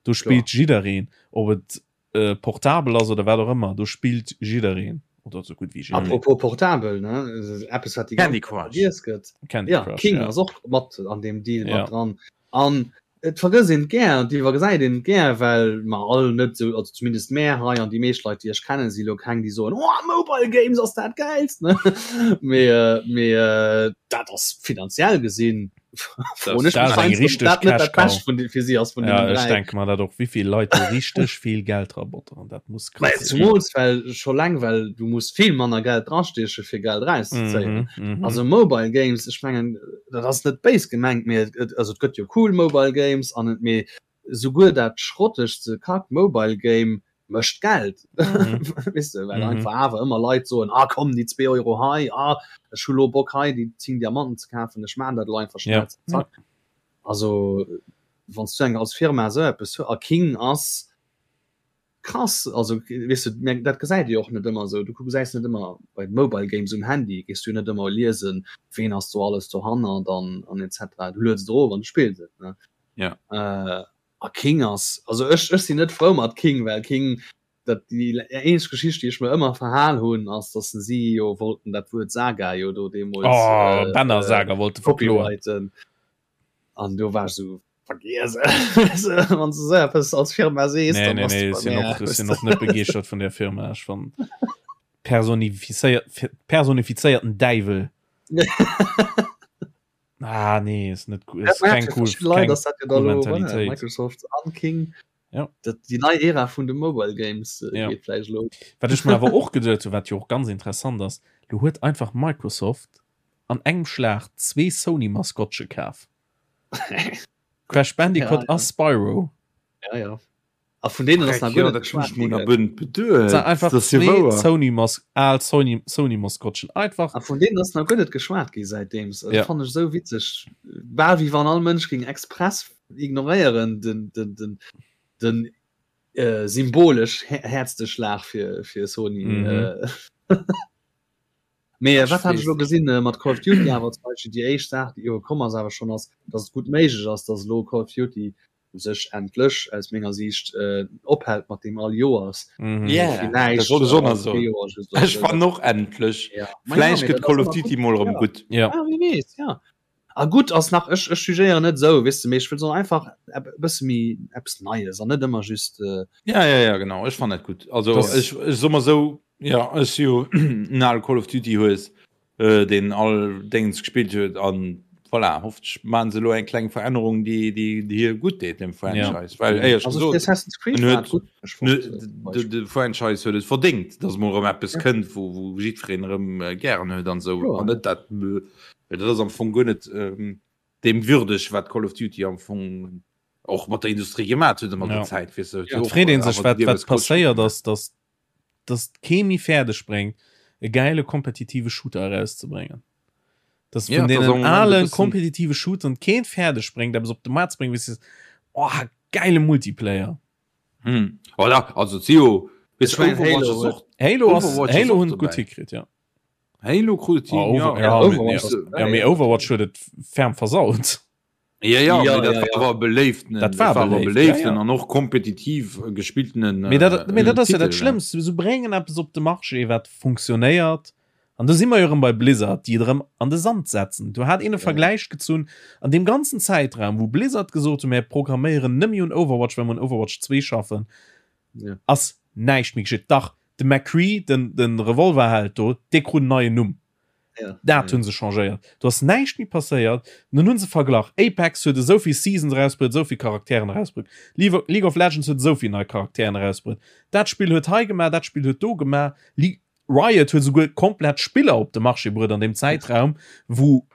Do spillt jiddereen, ob et äh, portabel ass oder wat och ëmmer, do spillt jiddereen oder sou gutt wéi jiddereen. Apropos portabel ne Eppes wat déi Candy Crush gëtt. Candy ja, Crush, King ja. ass och mat an deem Deal ja. mat dran. An et vergësst een et gär an et iwwergesäit een et gär, well mer all net esou, also zumindest mär hei an déi meescht Leit, déi ech kennen, si lo keng, déi soen, Oh, Mobile Games ass dat Gäilst, ne? Mee, mee dat ass finanziell gesinn, froen ech mech heiansdo, ob dat net dat Bescht vun fir si ass vun deenen dräi. Ja, ech denke mer dat och, wéi vill Leit do richteg vill Geld drabotteren, dat muss krass sinn. Zumools well scho leng, well du muss vill manner Geld drastieche fir Geld erauszezéien. Also Mobile Games, ech mengen, dat ass net béis gemengt, mee et, also et gëtt jo cool Mobile Games an et, mee souguer dat schrottegste Kack Mobile Game mécht Geld, weess de, well einfach awer ëmmer Leit soen, ah komm déi zwee Euro hei, ah ech hu lo Bock hei déi 10 Diamanten ze kafen, ech maan dat elo einfach schnell, zack zack. Also wann s du eng als Firma esou eppes hues, a King ass Krass, also weess de, mä dat gesäit ee jo och net ëmmer esou. Du gesäis net ëmmer bei Mobile Games um Handy gees du jo net ëmmer liesen, ween ass do alles dohannert an an et cetera. Du lueds et erof an du spills et, ne? Ja. A King ass, also ech ech sinn net frou mat King, well King, dat déi eenzeg Geschicht, déi ech mer ëmmer verhal hunn, ass, datt se si jo wollten dat Wuert Saga jo do deemools Oh, Banner Saga wollte verkloen. copyrighten. An do war ech esou, Vergiess et, wann s de esou eppes als Firma sees, Nee, nee, nee, ech sinn och, ech sinn och net begeeschtert vun där Firma. Ech fann personifizéiert, personifizéierten Däiwel. Ah, nee, ist net cool. Ist keng cool, keng cool Mentalitéit. Microsoft an King. Ja. Dat, déi nei Ära vun de Mobile Games äh, ja. geet vläicht lo. Wat ech mir awer och geduet hu, wat jo och ganz interessant ass, lo huet einfach Microsoft an engem Schlag zwee Sony-Maskottche kaf. Crash Bandicoot ja, a Spyro. Ja, ja. A vun deenen ass nach guer net geschwat ginn. Beduet. Einfach zwee Sony Mas al Sony Sony Maskottchen einfach. A vun deenen ass nach guer net geschwat gi säitdeems. Dat ja. fannen ech esou witzeg. Bal wéi wann all Mënsch géing express ignoréieren den den den den äh, symbolesch häertste Schlag fir fir Sony. Mhm. Äh. Mee wat hat ech elo gesinn mat Call of Duty awer zum Beispill déi éischt Saach déi elo komm ass awer schonn ass, datt et gutt méiglech ass, datt elo Call of Duty u sech endlech aus menger Siicht ophält mat deem all Joers. Villäicht Ech fannen och endlech. Vläicht gëtt Call of Duty mol erëm gutt. Ja, wie weess, ja. A gutt ass nach, ech ech jugéieren net esou, weess de, mee ech wëll soen einfach e bësse méi eppes Neies an net ëmmer just. Ja, ja, ja, genau, ech fannen dat gutt. Also ech ech soe mer esou, jo, ech si jo en ale Call of Duty Hues, deen all Déngens gespillt huet an voilà, hoffentlech maachen se elo eng kleng Verännerung, déi déi déi hir gutt deet dem Franchise, well éierlech Also gesot, Assassin's Creed en war huet gutt, ech fonnt de de Franchise huet et verdéngt, datt mol erëm eppes kënnt, wou wou jiddwereen erëm gären huet an esou an net dat Well dat ass am Fong guer net deem würdeg, wat Call of Duty am Fong och mat der Industrie gemat huet ëmmer der Zäit. Weess de, Et freet ee sech, wat wat passéiert ass, datt datt kee méi fäerdeg bréngt, e gäile kompetitive Shooter erauszebréngen. Datt vun deenen ale kompetitive Shooteren keen fäerdeg bréngt, eppes op de Maart ze bréngen, wou s de sees, Oh, gäile Multiplayer! Hm. Voilà, also et si jo, weess de, Overwatch ass och. Halo ass, Halo hunn et gutt hikritt, jo. Halo krut et hin, ja. Ja, Overwatch ja, mee Overwatch huet et ferm versaut. Ja, ja, ja, ja, ja. war beléiften dat war beléiften ja, ja. an och kompetitiv gespilltenen äh, dat, dat ass ja dat Schlëmmst se bréngen eppes op de Marché wat funktionéiert an do si mer jo erëm bei Blizzard déi et erëm an de Sand setzen do hat een e Vergläich gezunn an deem ganzen Zäitraum wou Blizzard gesot hu mär programméieren nëmme un Overwatch well mer un Overwatch 2 schaffen ja. ass näischt méi geschitt dach de McCree den den Revolverheld do dee krut en neien Numm Ja, dat hunn se changéiert. Do ass näischt méi passéiert. An dann hunn se verglach, Apex huet esou vill Seasons erausbruet, esou vill Charakteren erausbruet. League of Legends huet esou vill nei Charakteren erausbruet. Dat Spill huet hei gemaach, dat Spill huet do gemaach. Riot huet esouguer komplett Spiller op de Marché bruet an deem Zäitraum, wou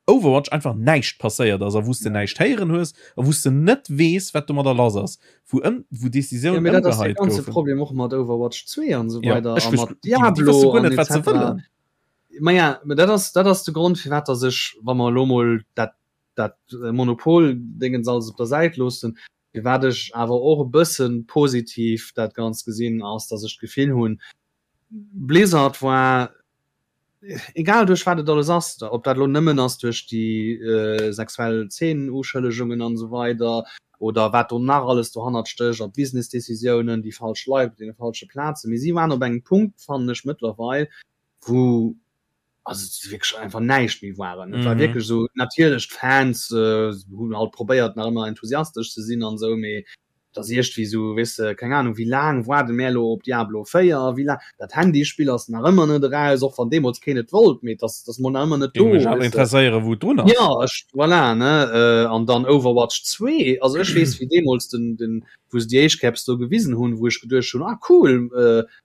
Overwatch einfach näischt passéiert ass a wou s de näischt héieren hues a wou s de net weess, wat domadder lass ass, wou ëm wou Decisiounen ëmgeheit goufen. Ja, mee dat ass de ganze Problem och mat Overwatch 2 an esou weider a mat Diablo an et cetera. Ma ja, mä dat ass, dat ass de Grond, firwat dass ech, wa mer elo mol dat, dat Monopol-Dingens alles op der Säit loossen, firwat ech awer och e bësse positiv dat Ganzt gesinn, ass, dass ech d'Gefill hunn, Blizzard war egal duerch wat et alles ass, ob dat elo nëmmen ass duerch déi sexuell Zeenenuschëllegungen an esou weider oder wat do nach alles dohannert stécht a Business-Decisiounen, déi falsch Leit op deene falsche Plazen, mee si waren op engem Punkt, fannen ech mëttlerweil, wou also et wierklech einfach näischt méi waren. Et war wierklech esou, natierlech d'Fans hunn halt probéiert nach ëmmer enthusiastesch ze sinn an esou, mee Et ass iergdwéi esou, weess de, keng Ahnung, wéi laang waarde mär elo op Diablo 4, wéi laang, dat Handyspill ass nach ëmmer net eraus, och wann deemools keen et wollt, mee et ass, et ass mol nach ëmmer net do, Géing mech awer weess de. interesséieren, wou et drun ass. Jo, ech, voilà, ne, an dann Overwatch 2, also ech weess, wéi deemools den, den, wou se déi éischt Caps do gewisen hunn, wou ech geduecht hunn, ah cool,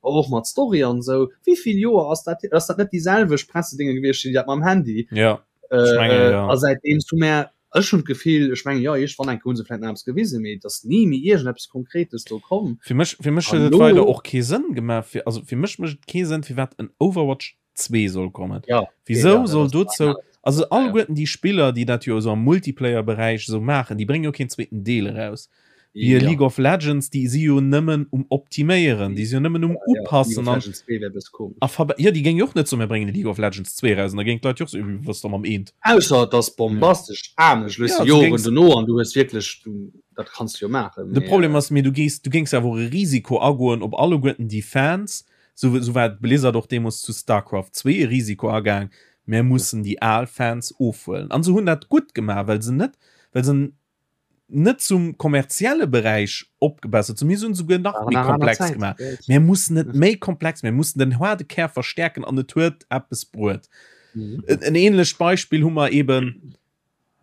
och mat Story an esou, wéi vill Joer ass dat hier, ass dat net déi selwecht Pressedénge gewiescht, déi dat mam Handy? Jo, ech mengen, jo. A säitdeems hu mär Ech hunn d'Gefill, ech mengen, jo, iergendwann eng Kéier hu se vläicht nach eppes gewisen, mee et ass ni méi iergendeppes Konkretes do komm. Fir mech, fir mech huet et weider och kee Sënn gemaach, fir, also fir mech mécht et kee Sënn, firwat en Overwatch 2 soll kommen. Ja, Wisou soll dozou, also alleguerten déi Spiller, déi dat jo esou am Multiplayer-Beräich esou maachen, déi bréngen jo keen zweeten Deel eraus. Wéi e League of Legends, déi si jo nëmmen um Optiméieren, déi si jo nëmmen um Upassen an a verbe jo, déi géing jo och net soen, mir bréngen e League of Legends 2 eraus an da géing d'Leit jo och soen, wat ass da mam eent? Ausser et ass bombastesch anescht, weess de, Joren dono an du hues wierklech, dat kanns de jo maachen. De Problem ass, mee du gees, du géings awer och e Risiko agoen op alleguerten déi Fans, sou sou war Blizzard och deemools zu Starcraft 2 e Risiko agaang, mir mussen déi al Fans ofhuelen. An se hunn dat gutt gemaach, well se net, well se net zum kommerzielle Beräich opgebessert zu mir hunn souguer nach méi komplex gemaach. Mir mussen net méi komplex, mir mussen den harde Kär verstärken an et huet eppes bruet. Mhm. En ähnlecht Beispiel hu mer eben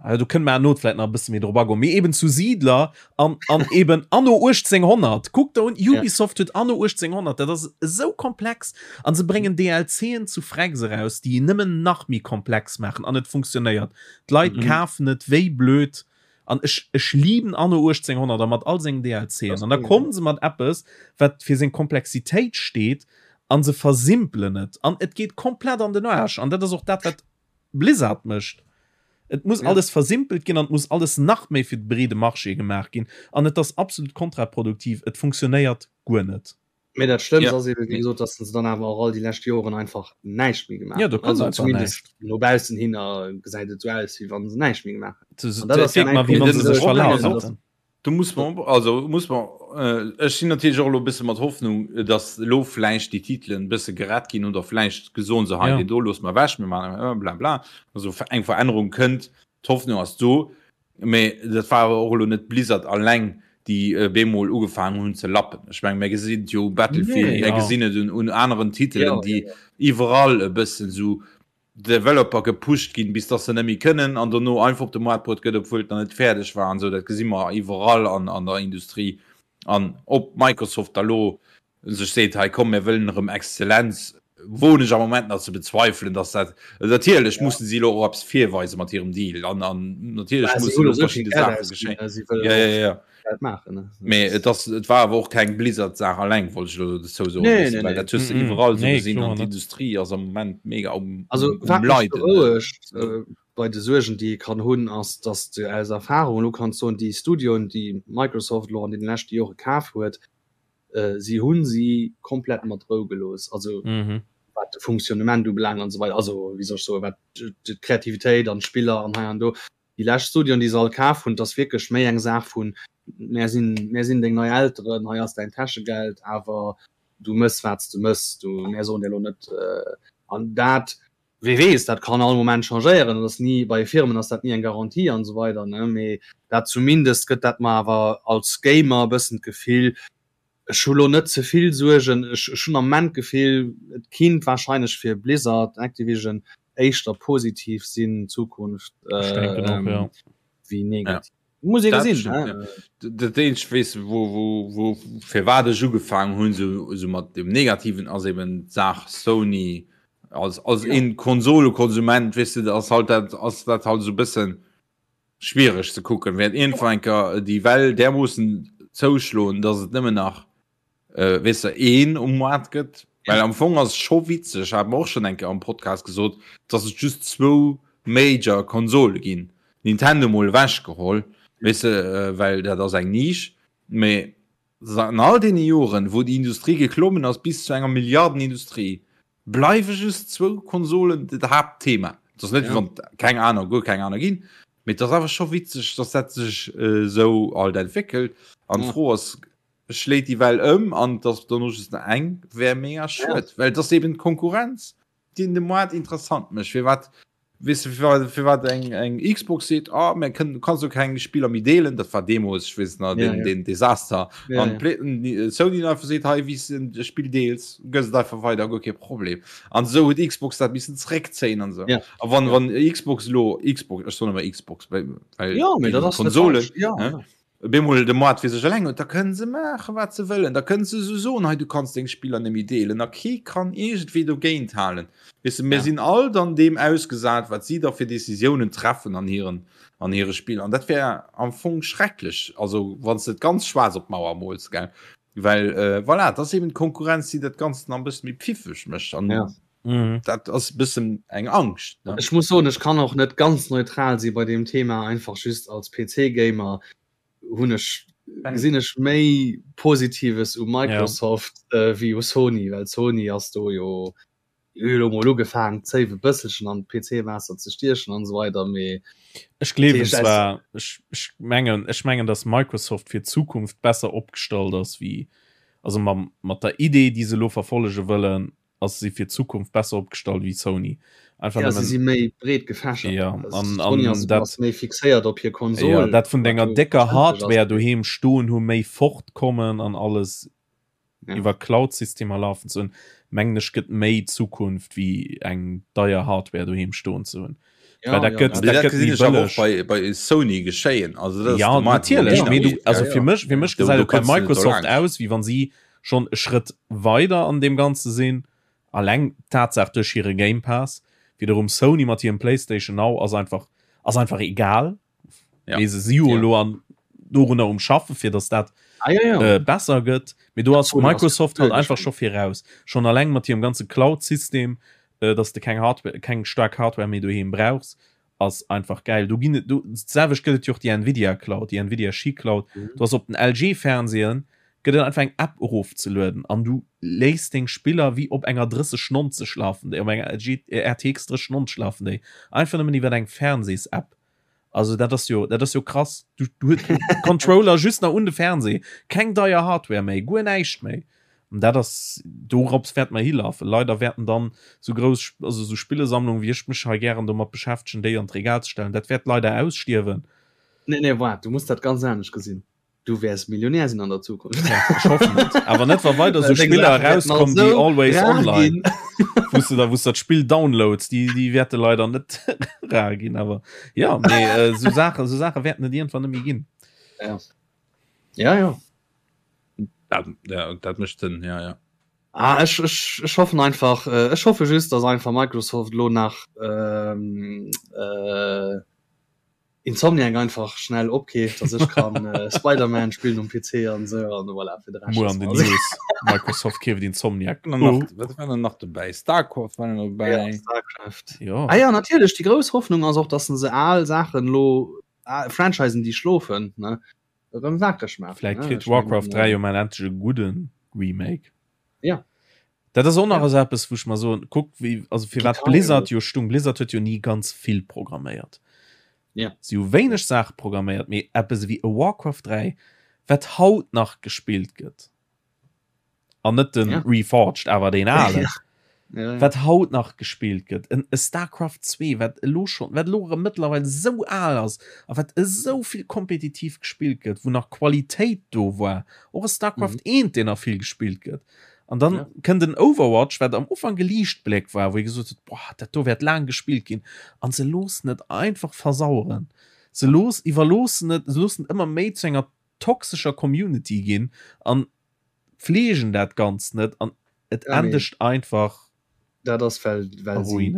äh, du kënnt mer not vielleicht nach e bësse méi drop agoen, mee eben zu Siedler an, an eben anno 1800. Kuck der un, Ubisoft huet anno 1800, dat ass esou komplex an se bréngen DLCen zu Frex eraus, déi nëmmen nach méi komplex maachen an et funktionéiert. D'Leit mhm. kafen et wéi blöd an ech, ech lieben Anno 1800 a mat all sengen DLCen. An da kommen se mat eppes, wat fir seng Komplexitéit steet an se versimpelen et an et geet komplett an den Arsch an dat ass och dat wat Blizzard mécht. Et muss ja. alles versimpelt ginn an muss alles nach méi fir de breede Marché gemaach ginn an et ass absolut kontraproduktiv. Et funktionéiert guer net. Mee dat Schlëmmst ja. ass eben, wéi gesot, dass se dann awer och all déi lescht Joren einfach näischt méi gemaach ja, do also zumindest no baussen hin gesäit et sou aus, wéi wann se näischt méi gemaach hätten. Dat ass ja wéi wann se sech verlaf hätten. Du muss man also muss man äh, ech sinn natierlech och elo e bësse mat Hoffnung, dass elo vläicht déi Titelen e bësse gerett ginn oder vläicht gesoen se hei ja. deen do loosse mer ewech, mir maachen äh, bla bla. Also eng Verännerung kënnt, d'Hoffnung ass do. Mee dat war awer och elo net Blizzard alleng, déi bemol ugefaangen hunn ze lappen. Ech mengen, mir gesinn et jo u Battlefield, mir gesinn et un aneren Titelen, déi iwwerall e bëssen esou Developer gepusht ginn, bis dass se net méi kënnen an dono einfach op de Moart bruet gëtt, obwuel et nach net fäerdeg war an esou. Dat gesi mer iwwerall an der Industrie. An ob Microsoft da lo sech seet, hei komm mir wëllen erëm Exzellenz, woen ech am Moment nach ze bezweifelen, dass dat, natierlech mussen si elo och eppes virweise mat hirem Deal an an natierlech mussen elo verschidde Saache geschéien. Ja, ja, ja. Mee et ass, et war awer och keng Blizzard-Saach alleng, wollt ech elo dozou soen, Nee, nee, well nee. dat hues de iwwerall esou gesinn an d'Industrie ass am Moment mega um, Also um wat mech Leiden. berouegt bei de Suergen, déi ee kann hunn, ass, dass de aus Erfahrung elo kanns soen, déi Studioen, déi Microsoft elo an deene leschte Jore kaf huet, si hu si komplett mat Rou gelooss, also wat de Fonctionnement ubelaangt an esou weider, also wéi soll ech soen, wat d'Kreativitéit an d'Spiller an hei an do. Déi lescht Studioen, déi se all kaf hunn, 't ass wierklech méi eng Saach vun, mär sinn, mär sinn deng nei Elteren, hei ass däin Täschegeld, awer du mëss wat s de mëss, du, mär soen dir elo net. An dat, wee weess, dat kann all Moment changéieren, dat ass ni, bei Firmen ass dat ni eng Garantie an esou weider, ne, mee dat zumindest gëtt dat mer awer als Gamer e bëssen d'Gefill, Ech hu lo net ze vill Suergen. Ech hunn am Moment d'Gefill, et kinnt wahrscheinlech fir Blizzard, Activision éischter positiv sinn d'Zukunft wéi negativ. Muss ee gesinn. Dat eenzegt weess de wou wou wou firwat ech ugefaangen hunn esou esou mat dem Negativen ass eben d'Saach Sony als als een Konsolekonsument weess de ass halt dat ass dat halt esou e bëssen Schwiereg ze kucken. Wäert iergendwann eng Kéier déi Well därmoossen zouschloen, dass et nëmmen nach, weess de, een um Moart gëtt. Well am Fong ass et scho witzeg, hat mer och schonn eng Kéier am Podcast gesot, dass et just zwou Major Konsole ginn. Nintendo mol ewechgeholl, weess de, well dat ass eng Nisch. Mee an all deene Joren, wou déi Industrie geklommen ass bis zu enger Milliardenindustrie, Bleiwe just zwou Konsolen dat Haaptthema. Et ass net, wéi wann et keng aner, guer keng aner ginn, mee et ass awer scho witzeg, dass dat sech esou alt entwéckelt. An d'Fro ass, schléit déi Well ëm an et ass dono just nach eng? Wär mega schued, well et ass eben d'Konkurrenz, déi de Moart interessant mécht. Firwat Weess de firwat eng eng Xbox seet oh, mir kënnen, du kanns jo keng Spiller méi deelen, dat war deemools, ech weess nach, den, den Desaster. An Sony einfach seet hei wéi s de Spill deels, gëss et einfach weider, guer kee Problem. An esou huet Xbox dat missen zeréckzéien an esou. A wann wann Xbox elo Xbox, ech soen ëmmer Xbox, well Konsole, Bemol de Moart fir sech eleng huet, da kënnen se maachen, wat se wëllen. Da kënnen se esou soen, hei du kanns deng Spiller net méi deelen a kee kann iergendwéi dogéint halen. Weess de, mir sinn all dann deem ausgesat, wat si da fir Decisiounen treffen an hiren, an hire Spiller. An dat wär am Fong schrecklech, also wann s de et ganz schwaarz op d'Mauer mools, gell. Well voilà, et ass eben d'Konkurrenz, déi dat Ganzt nach e bësse méi pfiffeg mécht. An dat ass e bëssen eng Angscht, ne? Ech muss soen, ech kann och net ganz neutral si bei deem Thema, einfach just als PC-Gamer hunn ech, gesinn ech méi Positives u Microsoft wéi u Sony, well Sony ass do jo elo mol ugefaangen d'Zéif e bësselchen an d'PC-Waasser ze stiechen an esou weider, mee Ech gleewen zwar, ech, ech mengen, ech mengen, datt Microsoft fir d'Zukunft besser opgestallt ass wéi, also mam, mat der Idee, déi se elo verfollege wëllen, ass si fir d'Zukunft besser opgestallt wéi Sony. Einfach ja, si si méi breet gefächert. Ja, an, an ass, dat ass méi fixéiert op hir Konsol. Ja, dat vun denger décker Hardware doheem stoen hu méi fortkommen an alles ja. iwwer Cloud-Systemer lafen ze hunn, mengen ech gëtt méi Zukunft wéi eng deier Hardware doheem stoen ze hunn. Ja, dat gëtt, ja, dat gëtt bëlleg. Bei, bei Sony geschéien. Also, das ja, natierlech. Mee du, also ja, ja. fir mech, fir mech gesäit et bei Microsoft aus, wéi wann si schonn e Schrëtt weider an deem Ganze sinn, alleng d'Tatsaach duerch hire Game Pass. Wiederum Sony mat hirem PlayStation Now ass einfach, ass einfach egal. Ja. Mee se si jo elo an dorunner um Schaffen, fir datt dat ah, ja, ja. Äh, besser gëtt. Mee do ass Microsoft halt einfach scho viraus. Schonn alleng mat hirem ganze Cloud-System, äh, datt s de keng Hardware, keng staark Hardware méi doheem brauchs. ass einfach geil. Do ginn et do d'selwecht gëtt et jo och déi Nvidia Cloud, déi Nvidia Shi Cloud. Mhm. Du ass op den LG Fernsehen gëtt et einfach eng App erofzelueden an du léiss deng Spiller wéi op enger 3090 lafen déi, op enger LG RTX 3090 lafen déi einfach nëmmen iwwer eng Fernsehs-App. Also dat ass jo dat ass jo krass. Du, du huet Controller just nach un de Fernseh, keng deier Hardware méi, guer näischt méi. An dat ass, dorops wäerte mer hilafen. Leider wäerten dann esou grouss, also esou Spillesammlungen, wéi ech mech hei gären domat beschäftegen, déi an d'Regal ze stellen, dat wäert leider ausstierwen. Nee, nee, waart, du muss dat ganz anescht gesinn. Du wäers Millionär sinn an der Zukunft. Ja, ech hoffen et. Awer net, wa weider esou Spiller erauskommen wéi Always Online, wou s de da, wou s de dat Spill downloads, déi, déi wäerte leider net rar ginn. Awer jo, mee esou Saachen, esou Saache wäerten et iergendwann net méi ginn. Ja. Ja, ja. Dat, ja, dat mécht Sënn, ja, ja. Ah, ech, ech, ech hoffen einfach, äh, ech hoffe just, dass einfach Microsoft lo nach ähm, äh, Insomniac einfach schnell opkeeft, dass ech kann äh, Spider-Man spillen um PC an sou an voilà, fir de Rescht. Muer an den News. Microsoft keeft Insomniac. Oh. Nach, wat war denn nach dobäi? Starcraft war noch dobäi. Ja, Starcraft. Ja. Ah ja, natierlech, déi grouss Hoffnung ass och, dass se al Saachen lo, ah, Franchisen, déi schlofen, ne? Erëm wakereg maachen. Vläit kritt Warcraft 3 jo mol endlech e gudde Remake. Ja. Dat ass och nach esou eppes, wou ech mer soen, kuck wéi, also firwat Blizzard jo stung, Blizzard huet jo ni ganz vill programméiert. Ja. Si hu wéineg Saache programméiert, mee eppes ewéi e Warcraft 3, wat haut nach gespillt gëtt, an net den ja. Reforged, awer deen alen, ja. Ja, ja. wat haut nach gespillt gëtt, en e Starcraft 2, wat elo schon, wat elo erëm mëttlerweil esou al ass a wat esou vill kompetitiv gespillt gëtt, wou nach Qualitéit do war, och e Starcraft mm. 1, deen nach vill gespillt gëtt. An dann ja. kënnt den Overwatch, wat am Ufank e Liichtbléck war, wou ee gesot huet, boah, dat do wäert laang gespillt ginn. An se loossen et einfach versaueren. Se looss, iwwerloossen et, se loossen et ëmmer méi zu enger toxescher Community ginn an pfleegen dat Ganzt net an et ja, endegt einfach dat ass well, well si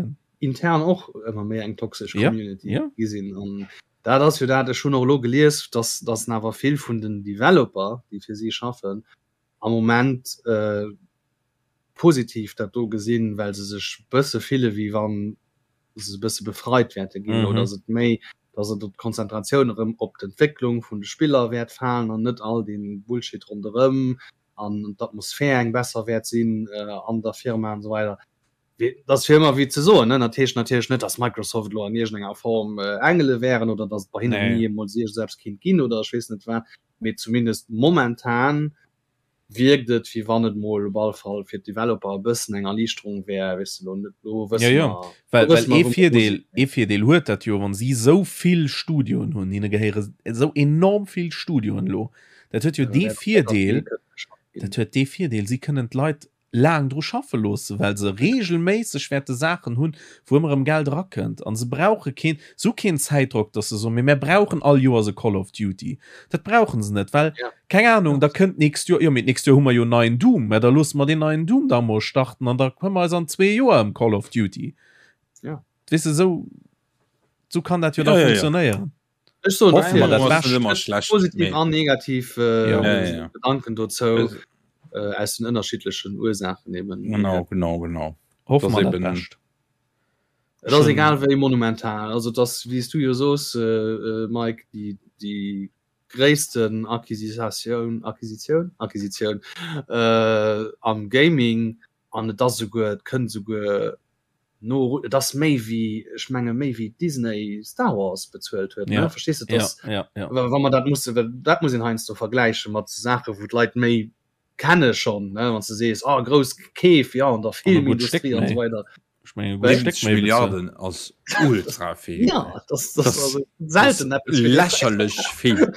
intern och ëmmer méi eng toxesch Community ja, ja. gi sinn. An dat ass jo dat, ech hunn och elo gelies, dass, dass awer vill vun den Developer, déi fir si schaffen, am Moment positiv dat do gesinn, well se sech bësse fille wéi wann se e bësse befreit wäerte ginn mm -hmm. oder et méi, dass et d'Konzentratioun erëm op d'Entwécklung vun de Spiller wäert falen an net all den Bullshit ronderëm an d'Atmosphär eng besser wäert sinn äh, an der Firma an so weider. Dat ass fir ëmmer wéi ze soen, ne? Dat heescht natierlech net, dass Microsoft elo an iergendenger Form äh, Engele wären oder dass et bei hinnen nee. ni emol iergendeppes kinnt ginn oder ech weess net wat. mee zumindest momentan wierkt et wéi wann et mol op alle Fall fir d'Developer e bëssen eng Erliichterung wär, weess de lo net, lo wësse ja, ja. mer, well, well ee Virdeel, ee Virdeel huet dat jo, wann si esou vill Studioen hunn, hinne gehéiere esou enorm vill Studioen elo, dat huet jo dee Virdeel, dat huet dee Virdeel, si kënnen d'Leit laang dru schaffe loosse, well se regelméisseg wäerte Saachen hunn, wou ëmmer erëm Geld erakënnt. A se brauche keen, se hu keen Zäitdrock, datt se soen, mee mär brauchen all Joers e Call of Duty. Dat brauche se net, well, keng Anung, da kënnt d'nächst Joer, jo mee d'nächst Joer hu mer jo en neien Doom, mä da loosse mer deen neien Doom da emol starten an da këmmer eis an zwee Joer ëm Call of Duty. Weess de, esou, esou kann dat jo da funktionéieren. Ech soen Hoffe mer dat Bescht. Ëmmer schlecht, positiv an negativ äh, ja. Ja, ja. Gedanken dozou also, äh, aus den ënnerschiedlechen Ursaachen eben. Genau, genau, genau. Hoffe mer dat Bescht. Et ass egal wéi monumental, also das wéi s du jo soos äh, äh, Mike, déi déi gréissten Acquisitioun Acquisitioun Acquisitioun äh, am Gaming an et ass esouguer, et kënnt esouguer no, et ass méi wéi, ech menge méi wéi Disney Star Wars bezuelt huet, ne? Verstees de, dass, ja, ja, ja. wa mer dat musse, well dat muss een heiansdo vergläiche mat Saache wou d'Leit méi kenne schonn, ne, wann s de sees, ah grouss Keef, ja an der Filmindustrie an esou weider. Ech mengen, e gutt Stéck 70 méi bezuelt. Milliarden ass ultra vill. Ja, das, das, das also selten eppes fir lächerlech vill.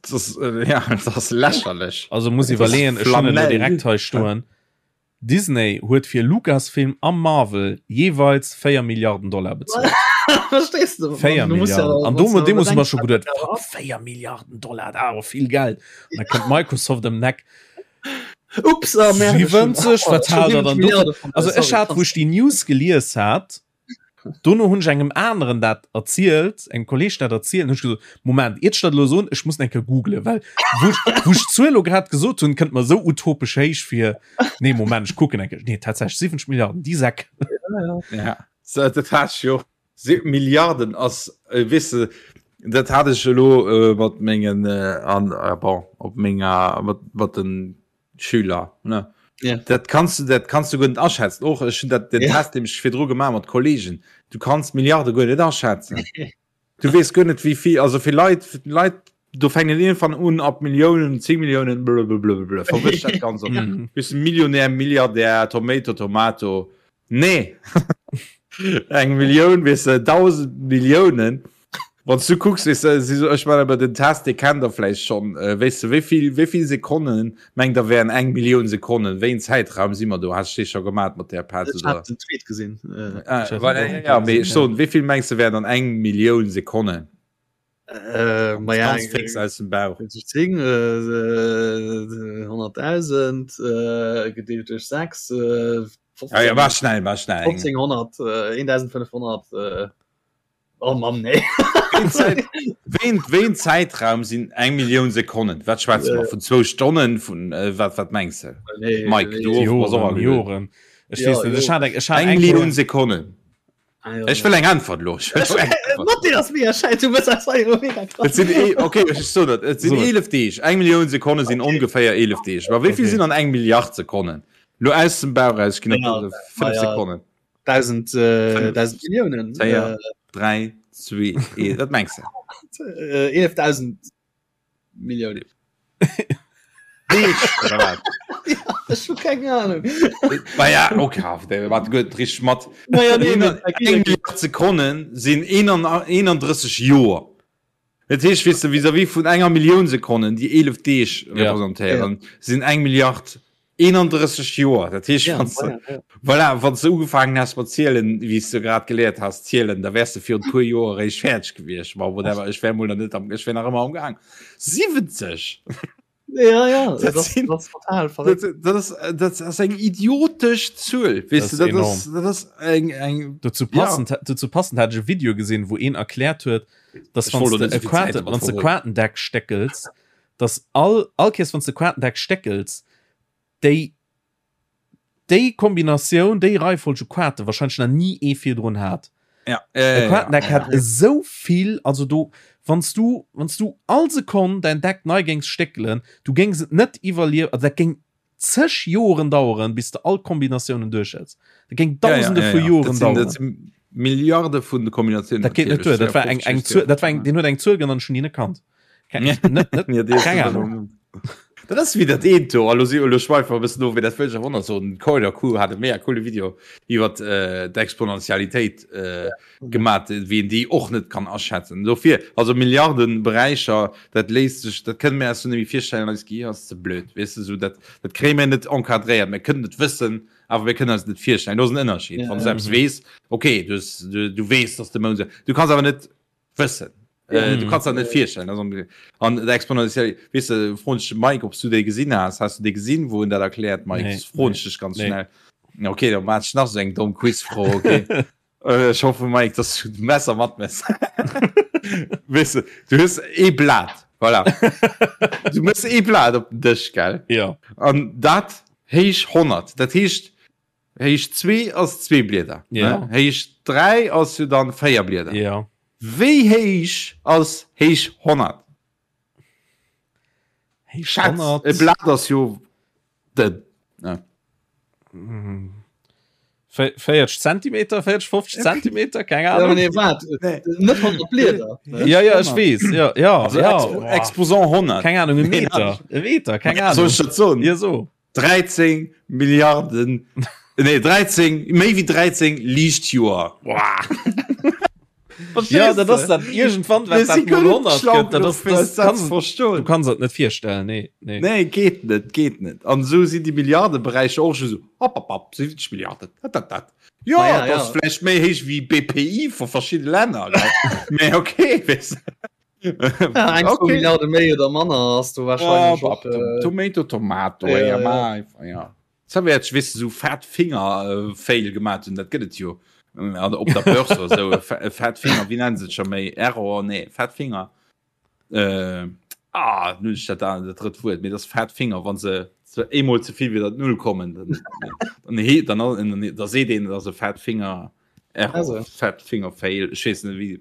Das, äh, ja, das ass lächerlech. Also muss iwwerleeën, ech hunn et elo direkt hei stoen. Disney huet fir Lucasfilm a Marvel jeeweils 4 Milliarden Dollar bezuelt. Verstees du? 4 Milliarden. An do deemools hu mer scho geduet, fuck, 4 Milliarden Dollar, dat ass awer vill Geld. An da kënnt Microsoft ëm d'Eck. Ups, ah, merde, 70, wat hat der dann do? Also ech hat, wou ech déi News gelies hat, Dono hunn ech engem aneren dat erzielt, engem Kolleg dat erzielt, hunn ech gesot, Moment, iert ech dat elo soen, ech muss eng Kéier googlen, well wou ech, wou ech d'Zuel elo grad gesot hunn, kënnt mer esou utopesch héich vir. Nee, Moment, ech kucken eng Kéier. Nee, tatsächlech 70 Milliarden, déi Säck. Ja, so, dat hat ech jo. Milliarden ass, äh, weess de, dat hat ech elo äh, mat mengen, äh, an, äh, bon, op menger, mat, mat den Schüler ne yeah. dat kannst du dat kannst du guer net aschätzen och ech hun dat den yeah. Test dem ech virdru gemaach mat Kollegen du kannst Milliarde guer net aschätzen du wees guer net wie viel also fir Leit Leit do fänken irgendwann un ab Milliounen 10 Milliounen blablabla verwëscht dat ganz op mhm. bist Millionär Milliardär Tomato Tomato nee eng Millioun weess de 1000 Milliounen Wann du kucks weess de si so ech man awer den Test dee kennt der vläicht schonn äh, weess de wéivill wéivill Sekonnen mengt der wären eng Millioun Sekonnen wéi en Zäitraum si mer do has dee scho gemat mat där Pat Ech oder hat den Tweet gesinn. Äh, ah, voilà, ja, ja, mee ech soen wéivill mengs de wären dann eng Millioun Sekonnen äh, ma ja, ganz fix aus dem Bauch 10, äh, 100.000 äh, gedeelt duerch 6, äh, 15, ja, ja, war schnell war schnell 1500, äh, 1500, äh, Oh Mann, nee. Ween, ween Zäitraum sinn eng Millioun Sekonnen? Wat schwätze mer? Vun zwou Stonnen? Vun äh, wat, wat mengs de? Nee, Mike, nee. du och, Joren, bass och agelueden. Joren. Ech Ja, weess net, ech hat eng, ech hat Eng eng Millioun Kéier. Sekonnen. Ah, ja, Ech wëll eng Äntwert lo. Ech wëll eng Äntwert. Mat dir ass mega schäiss, du bist einfach immer mega krass. Et sinn e okay, ech so dat. Et sinn So. 11 Deeg. Eng Millioun Sekonne sinn ongeféier 11 Deeg. Ma wéi vill Okay. sinn an eng Milliard Sekonnen? Lo aus dem Bauch raus, ech ginn Ja, op 5 ja. Sekonnen. 1000 äh, 5, 1000 Milliounen. 4, Äh, 3, 2, 1, wat mengs de? 11.000 Milliounen. Deeg, oder wat? Ech hu keng Ahnung. Ma ja, okay, wat gutt, richteg mat. Naja, nee, nee, Eng Milliard Sekonnen sinn 31 Joer. Dat heescht, weess de, vis-à-vis vun enger Millioun Sekonnen, déi 11 Deeg representéieren, sinn eng Milliard 31 Joer. Dat heescht, wann s de, voilà, wann s de ugefaangen häss mat zielen, wéi s de grad geléiert has zielen, da wäers de virun e puer Joer eréischt fäerdeg gewiescht. Ma whatever, ech wär mol nach net am, ech wär nach ëmmer am Gaang. 70! Ja, ja, dat, dat, sinn, dat ass total verréckt. Dat, dat, ass, dat ass eng idiotesch Zuel. Weess de, dat ass, dat ass eng, eng Dozou passend, ja. dozou passend hat ech e Video gesinn, wou een erkläert huet, dass wann du e Quarte, wann du Quatendeck steckels, dass all, all Kees wann du Quatendeck steckels, déi déi Kombinatioun, déi Reifolg u Quarte wahrscheinlech nach ni ee virdrun hat. Ja, äh, Quatendeck ja, hat ja. esou vill, also do wanns du wanns du all Sekonn dein Deck nei géings stéckelen, du géings et net iwwerliewen, also dat géing zeg Joren daueren, bis de all Kombinatiounen duerch häss. Dat géing dausende ja, ja, vu ja, ja. Joren Dat sinn, dat daueren. sinn Milliarde vun de Kombinatiounen. Dat geet net duer. Dat war eng eng Zuel, dat war eng, deen huet eng Zuel genannt, ech hunn déi net kannt. Net, net, Ja, déi keng Ahnung. Dat ass wéi dat eent do, elo si elo schweife mer e bëssen of, mee dat wëll ech awer och nach soen, den Coider-Q hat e mega coole Video iwwer d'Exponentialitéit gemat, wéi een déi och net kann aschätzen. Dofir, also Milliardenberäicher, dat léisst sech, dat kënne mir eis jo net méi virstellen, eist Gehir ass ze blöd, weess de, esou dat, dat kréie mir net encadréiert, mir kënnen et wëssen, awer mir kënnen eis et net virstellen. Do ass en Ënnerscheed, wann s du eppes weess, okay, du hues, du weess, dass de Mound esou, du kanns awer net wëssen. Äh, du kannst dat net virstellen also, an der exponentiell weißt du, froen ech Mike ob du déi gesinn has hast du déi gesinn wou en dat erkläert Mike Nee, froen nee, ech dech ganz nee. schnell okay dann mat nach so eng domm Quizfro okay äh, ich hoffe Mike dass du Messer mat mess weißt du, du hues ee Blat voilà du mëss ee Blat op den Dësch gell Ja. an dat héich 100 dat heescht Héicht 2 ass 2 Blieder. Ja. Ne? Héicht 3 ass jo dann 4 Blieder. Ja. Wéi héich ass héich 100? Héich Schätz, 100. e Blat ass jo dënn. Ne? 40 Zentimeter, 40, 50 Zentimeter, keng Ja, Ahnung. nee, wat? Nee. Net 100 Blieder. ne? Ja, ja, ech weess. Ja, ja, Also ja. Expo Exposant 100. Keng Ahnung, e Nee, Meter. E Meter, keng Soll Ahnung. ech dat soen? Ja, so. 13 Milliarden, nee 13, méi wéi 13 Liichtjoer. Ja, dat ass dat irgendwann wat dat mol 100 gëtt, dat ass das dat kannst, du verstoen. kannst dat net virstellen, nee, nee. Nee, geet net, geet net. An esou sinn déi Milliardeberäicher och just esou hopp, hopp, hopp, 70 Milliarden, dat, dat, dat. Jo, Ma ja, dat ass ja. vläicht méi héich wéi BPI vu verschidde Länner, gell? Mee okay, weess de. Ja, eng okay. Milliarde méi oder manner ass du wahrscheinlich ja, och, äh, Tomato Tomato ja, ja, ja. ja. ja. Wäert wis so fat Finger äh, Fail gemacht hun dat gëtt et jo äh, op der Börse oder so e fat Finger wie nennen se schon méi Error nee fat Finger äh, ah, nun dat da dat drëtt Wuert mir das fat Finger wann se ze eemol ze vill wieder null kommen dann, dann, dann, dann, dann, da seet een dat e fat Finger Error, Also. fat Finger Fail ech weess net wie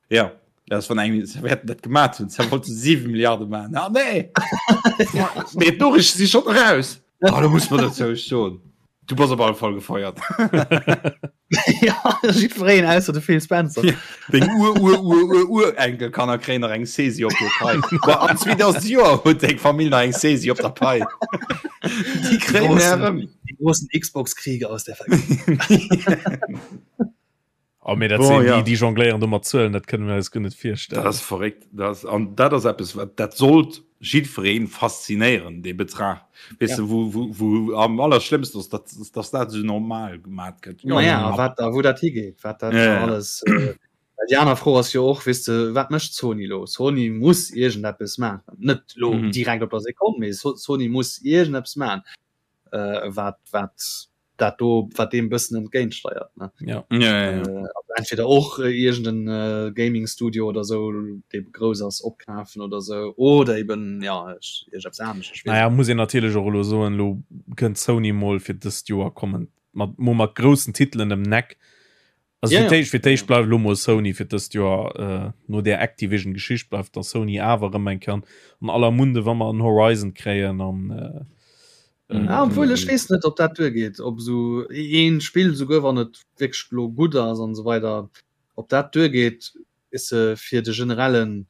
Ja das van eng werden dat gemacht hun wollte 7 Milliarden machen. Ah, nee nee, d'Noriichte si schon raus. Ah, da muss man dozou soen. Du bass op alle Fall gefeiert. ja, jiddwereen ausser de Phil Spencer. Ja. Deng Ur Ur Ur Ur Urenkelkanner kréien nach eng Saisi op hir Pai. Ba an 2000 Joer huet deng Famill nach eng Saisi op der Pai. Déi kréien Großen- erëm. Die großen Xbox-Kriege aus der Vergangenheit. Oh, mee dat Bon, sinn ja. déi, déi jongléieren do mat Zuelen, dat kënne mir eis guer net virstellen. Dat ass verréckt. Dat ass, an dat ass eppes, wat dat sollt jiddweree faszinéieren, dee Betrag. Weess Ja. de, wou, wou, wou am allerschlimmsten ass, datt, datt dat esou normal gemat gëtt. Ma ja, wat da, wou dat higeet, wat dat Ja, ja. alles. Äh, well déi aner Fro ass jo och, weess de, wat mécht Sony lo? Sony muss iergendeppes maachen. Net lo Mhm. direkt op der Sekonn, mee So- Sony muss iergendeppes maachen, äh, wat, wat dat do wat deem bëssen entgéintsteiert ne ja. Ja, ja, ja. Äh, also entweder och äh, irgenden äh, Gaming Studio oder so dee grouss ass opkafen oder so oder eben ja ech, ech eppes anescht, ech weess Naja, muss een natierlech och elo soen, elo kënnt Sony mol fir dëst Joer kommen mat mo mat groussen Titelen ëm Neck. Also Ja, fir ja. d'éischt fir d'éischt bleift elo mol Sony fir dëst Joer äh, no där Activision Geschicht bleift da Sony awer erëm eng Kéier an aller Munde wa mer en Horizon kréien an äh, Mhm. Ja, obwuel ech weess net, ob dat duergeet, ob esou een Spill, souguer wann et wierklech lo gutt ass an esou weider, ob dat duergeet. Weess de, fir de generellen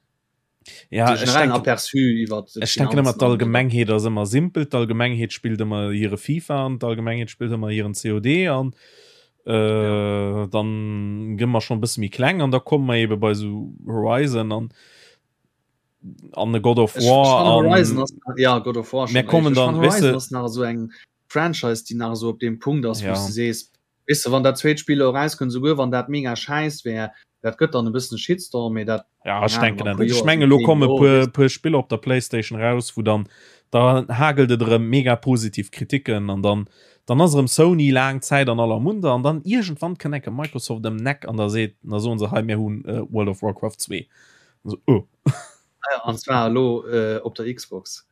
Ja, de generellen Aperçu iwwer Ech denken ëmmer d'Allgemengheet ass ëmmer simpel, d'Allgemengheet spillt ëmmer hire FIFA an d'Allgemengheet spillt ëmmer hiren COD an äh, dann gëmmer mer schon bësse méi kleng an da komme mer ebe bei sou Horizon an an e God of War an Horizon ass, ja God of War mir kommen dann weißt du, ass nach esou eng Franchise déi nach esou op deem Punkt ass ja. wou s de sees Weess de, wann dat zweet Spill elo erauskënnt, esouguer wann dat mega schäiss wär, dat gëtt dann e bëssen e Shitstorm, mee dat, Ja, ech denken dat net. Ech mengen, elo komme puer, puer Spiller op der Playstation raus, wou dann, da hagelt et erëm mega positiv Kritiken an dann, dann ass erëm Sony laang Zäit an aller Munder an dann iergendwann kënnt enke Microsoft ëm d'Eck an da seet, da soen se, hei mir hunn World of Warcraft 2. An esou, oh. An zwar elo äh, op der Xbox.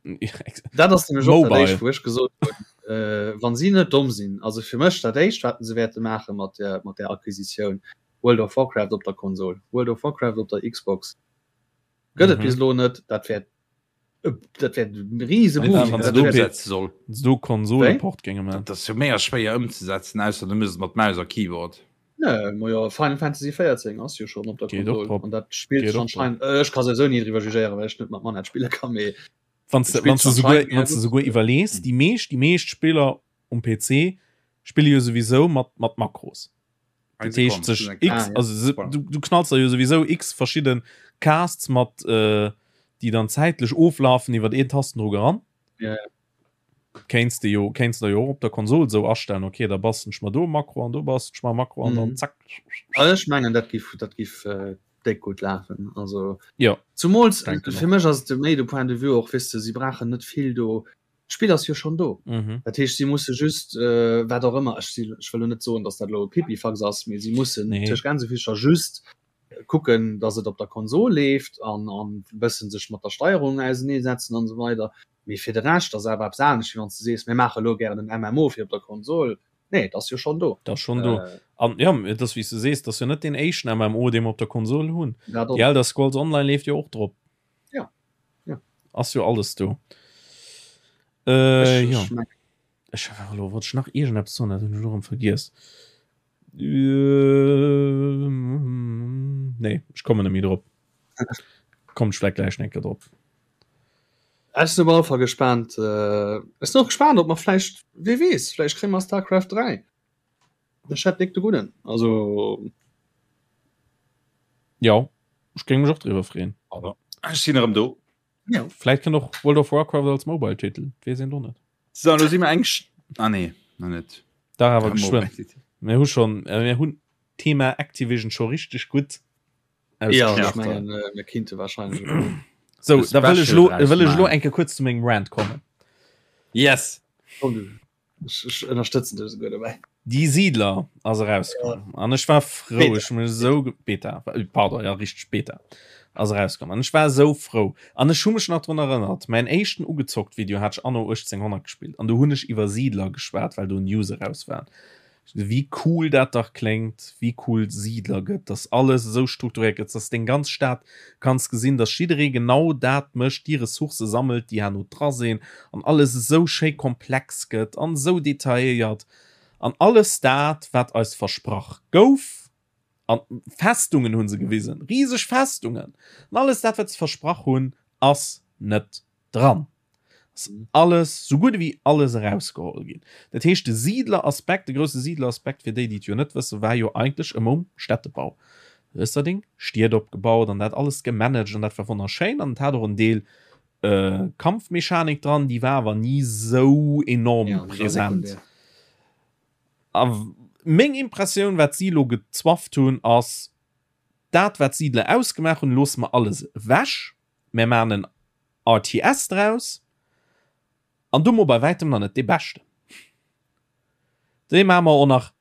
Dat ass nämlech och dat éischt, wou ech gesot hunn, äh, wann si net domm sinn, also fir mech dat éischt, wat se wäerte maache mat der, mat der Acquisitioun, World of Warcraft op der Konsol, World of Warcraft op der Xbox gëtt et mhm. bis elo net, dat wäert äh, dat wäert e riese Boom. Wann se do soll. Do Konsoleport géinge man. Dat ass jo méi schwéier ëmzesetzen, ausser du misst mat Maus a Keyboard. Nee, ma jo, Final Fantasy 14 ass jo schon op der Konsol an dat spillt sech anscheinend äh, ech ka souwisou ni driwwer jugéieren, well ech net mat Manette spille kann, mee Wann du wann du souguer wann du souguer iwwerlees, déi meescht déi meescht Spiller um PC spille jo souwisou mat mat Makros. Dat heescht sech X ah, ja. also du, du knalls da jo souwisou X verschidden Casts mat äh, déi dann zäitlech oflafen iwwer een Tastendrock eran. Ja, ja. Kéints de jo kéints der jo och op der Konsol esou astellen, okay, da bastelen ech mer do e Makro an do bastelen ech mer e Makro an dann mhm. zack. Also ech mengen dat giff dat giff äh, déck gutt lafen. Also ja. Zumools fir mech ass de méi de Point de vue och weess de, si brauchen net vill do. D'Spill ass jo schon do. Mhm. Dat heescht si musse just äh, wat och ëmmer ech si ech wëll lo net soen, datt dat lo e Pipifax ass, mee si mussen nee. tëscht Gänsefüßcher just kucken, datt et op der Konsol leeft an an bëssen sech mat der Steierung auseneesetzen an esou weider. Mee fir de Rescht ass awer eppes anescht, wéi wann s de sees, mir maache elo gären en MMO fir op der Konsol. Nee, et ass jo schonn do. Et ass schonn do. An jo, et ass wéi s de sees, et ass jo net deen éischten MMO, dee mer op der Konsol hunn. Déi Elder Scrolls Online leeft jo och drop. Jo, jo. Ass jo alles do. Äh, jo. Ech war elo, wollt ech nach iergendeppes soen, dat hunn ech elo erëm vergiess. Äh, nee, ech kommen net méi drop. Kommt ech vläicht gläich nach eng Kéier drop. Ech sinn op alle Fall gespaant. Äh, ech sinn och gespaant, ob mer vläicht, wee weess, vläicht kréie mer Starcraft 3. Ech hätt déck de Gudden. Also. Jo, ech géing mech och driwwer freeën. Also, ech sinn erëm do. Ja. Vläicht kënnt och World of Warcraft als Mobile-Titel, dat weess een do net. So, lo si mer eng. Ah nee, nach net. Dach awer geschwënn. Mir hu schonn, äh, mir hunn d'Thema Activision scho richteg gutt Ja, ech mengen, äh, mir kinnte wahrscheinlech. So, da wëll ech lo, wëll ech lo enke kuerz zu mengem Rant kommen. Yes. Komm, du. Ech, ech ënnerstëtzen dech esouguer dobäi. Die Siedler ass erauskomm an ech war frou, ech hun esou Beta, äh, pardon, ja richteg Beta ass erauskomm an ech war esou frou an ech hu mech nach drun erënnert, mäin éischten ugezockt Video hat ech anno 1800 gespillt an do hunn ech iwwer Siedler geschwat, well do News eraus waren. Wéi cool dat dach kléngt, wéi cool Siedler gëtt, dass alles esou strukturiert gëtt, dass deng ganz Stad kanns gesinn, dass jidderee genau dat mécht, déi Ressourcë sammelt, déi herno dra sinn an alles esou schéi komplex gëtt an esou detailléiert an alles dat, wat eis versprach gouf. An Festungen hu se gewisen, riseg Festungen an alles dat, wat se versprach hunn, ass net dran. Ass alles, sou gutt ewéi alles erausgeholl ginn. Dat heescht, de Siidleraspekt, de grousse Siidleraspekt, fir déi, déi et jo net wëssen, war jo eigentlech ëmmer um Städtebau. Du hues da deng Stied opgebaut an dat alles gemanagt an dat war wonnerschéin an et hat och en Deel Kampfmechanik dran, déi war awer ni sou enorm present. A meng Impressioun, wat si elo gezwafft hunn, ass, dat wat d'Siidler ausgemaach hunn, loosse mer alles ewech, mär maachen en RTS draus an domo bei wäitem nach net dee beschten. Dee maache mer och nach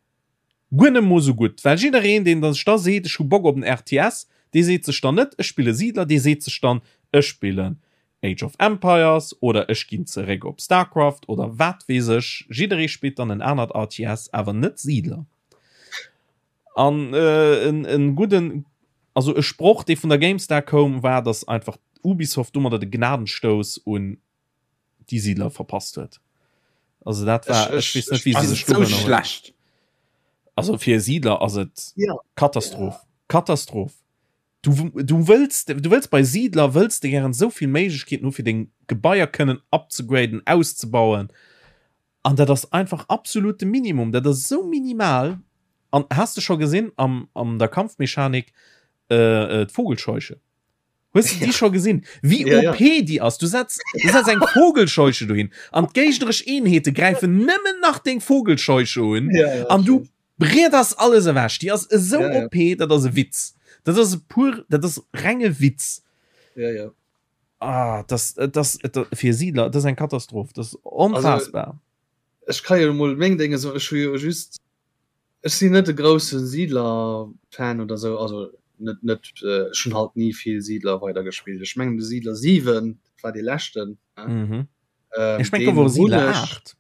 guer net mol sou gutt, well jiddereen deen da sech da seet ech hu Bock op en RTS, dee seet sech dann net ech spille Siedler, dee seet sech dann ech spillen Age of Empires oder ech ginn zeréck op Starcraft oder wat weess ech. Jidderee spillt dann en anert RTS, awer net Siedler. An en gudden, also e Sproch dee vun der GameStar koum, war dass einfach Ubisoft domadder de Gnadenstouss un déi Siedler verpasst huet. Also dat war, ech weess net wéi se sech do schlecht. Also fir e Siedler ass et Katastroph. Katastroph. Du, du wëlls, du wëlls bei Siedler wëlls de gären esou vill Méiglechkeeten hu fir deng Gebaier kënnen upzegraden, auszebauen. An dat ass einfach absolut de Minimum. Dat ass esou minimal. An has de scho gesinn am, an der Kampfmechanik äh, äh, d'Vogelscheuche? Hues du déi scho gesinn? Wéi Ja, ja. OP déi ass? Du setz, du setz eng Vogelscheuche dohin an d'géigneresch Eenheete gräifen nëmmen nach deng Vogelscheuche un Ja, ja, an du breeders alles ewech. Déi ass esou Ja, ja. OP, dat ass e Witz. Dat ass e pur, dat ass renge Witz. Ja, ja. Ah, das, das, das, fir Siedler, das ist eng Katastroph. Das ist onfassbar. Ech kann jo mol meng Dinge so ech hu jo just ech sinn net de grousse Siedler-Fan oder sou, also net net äh, ech hunn halt ni vill Siedler weider gespillt. Ech mengen de Siedler 7 dat war dee leschten. Ne? Mhm. Ähm, Ech meng deen gouf och hunn Siedler ech 8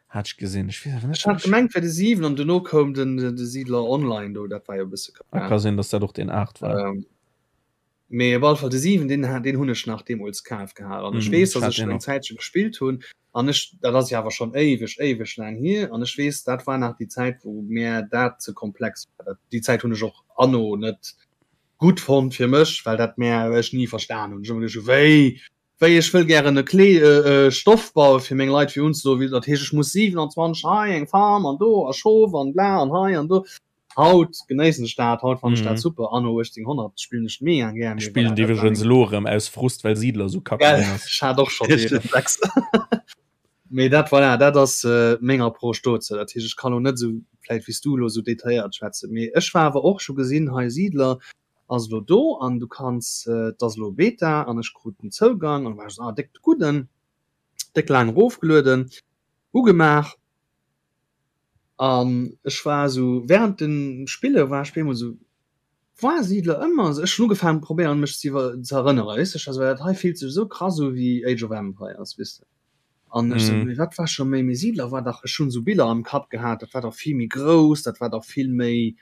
hat ech gesinn. Ech weess awer net Ech hat gemengt wär de 7 an duerno koum den de Siedler Online do, dat war jo e bësse Ah, ka sinn, dass dat och deen 8 war. Ähm, Mee op alle Fall de 7 deen deen hunn ech nach deemools kaf gehat an ech Mm, weess, ech datt hat ech deen eng och. Zäitche gespillt hunn an ech dat ass jo awer schonn éiweg éiweg laang hier an ech weess, dat war nach déi Zäit wou mär dat ze komplex war. Dat déi Zäit hunn ech och anno net gutt fonnt fir mech, well dat mär ech ni verstan hunn. Ech hu ëmmer geduecht, wéi wéi ech wëll gären e Klee e Stoff baue fir meng Leit fir unzedoen, wéi dat heescht ech muss 27 hei eng Farm an do a Schof an bla an hei an do. Haut genéissen ech dat, haut fannen ech dat Mhm. super. Anno 1800 spillen ech mega gär. Ech Mee spillen voilà, dat war iwwregens meng elo erëm aus Frust, well Siedler esou kacke Gell, ginn ass. ech hat och schonn dee Reflex. Mee dat, voilà, dat ass meng Approche dozou. Dat heescht, ech kann elo net esou vläicht wéi s du elo esou detailléiert schwätzen. Mee ech war awer och, ech hu gesinn, hei Siedler ass elo do an du kanns, et ass elo Beta an ech krut den Zougang an war ech esou, ah déck de Gudden, déck laang erofgelueden, ugemaach. An ech war esou während dem Spille war ech op eemol esou, war Siedler ëmmer esou? Ech hunn ugefaangen probéieren mech ze iwwer ze erënneren, weess de, ech war esou, dat hei fillt sech esou krass u wéi Age of Empires, weess de. An ech esou, Mhm. mee wat war scho méi, mee Siedler war dach, ech hunn esou Biller am Kapp gehat, dat war dach vill méi grouss, dat war dach vill méi,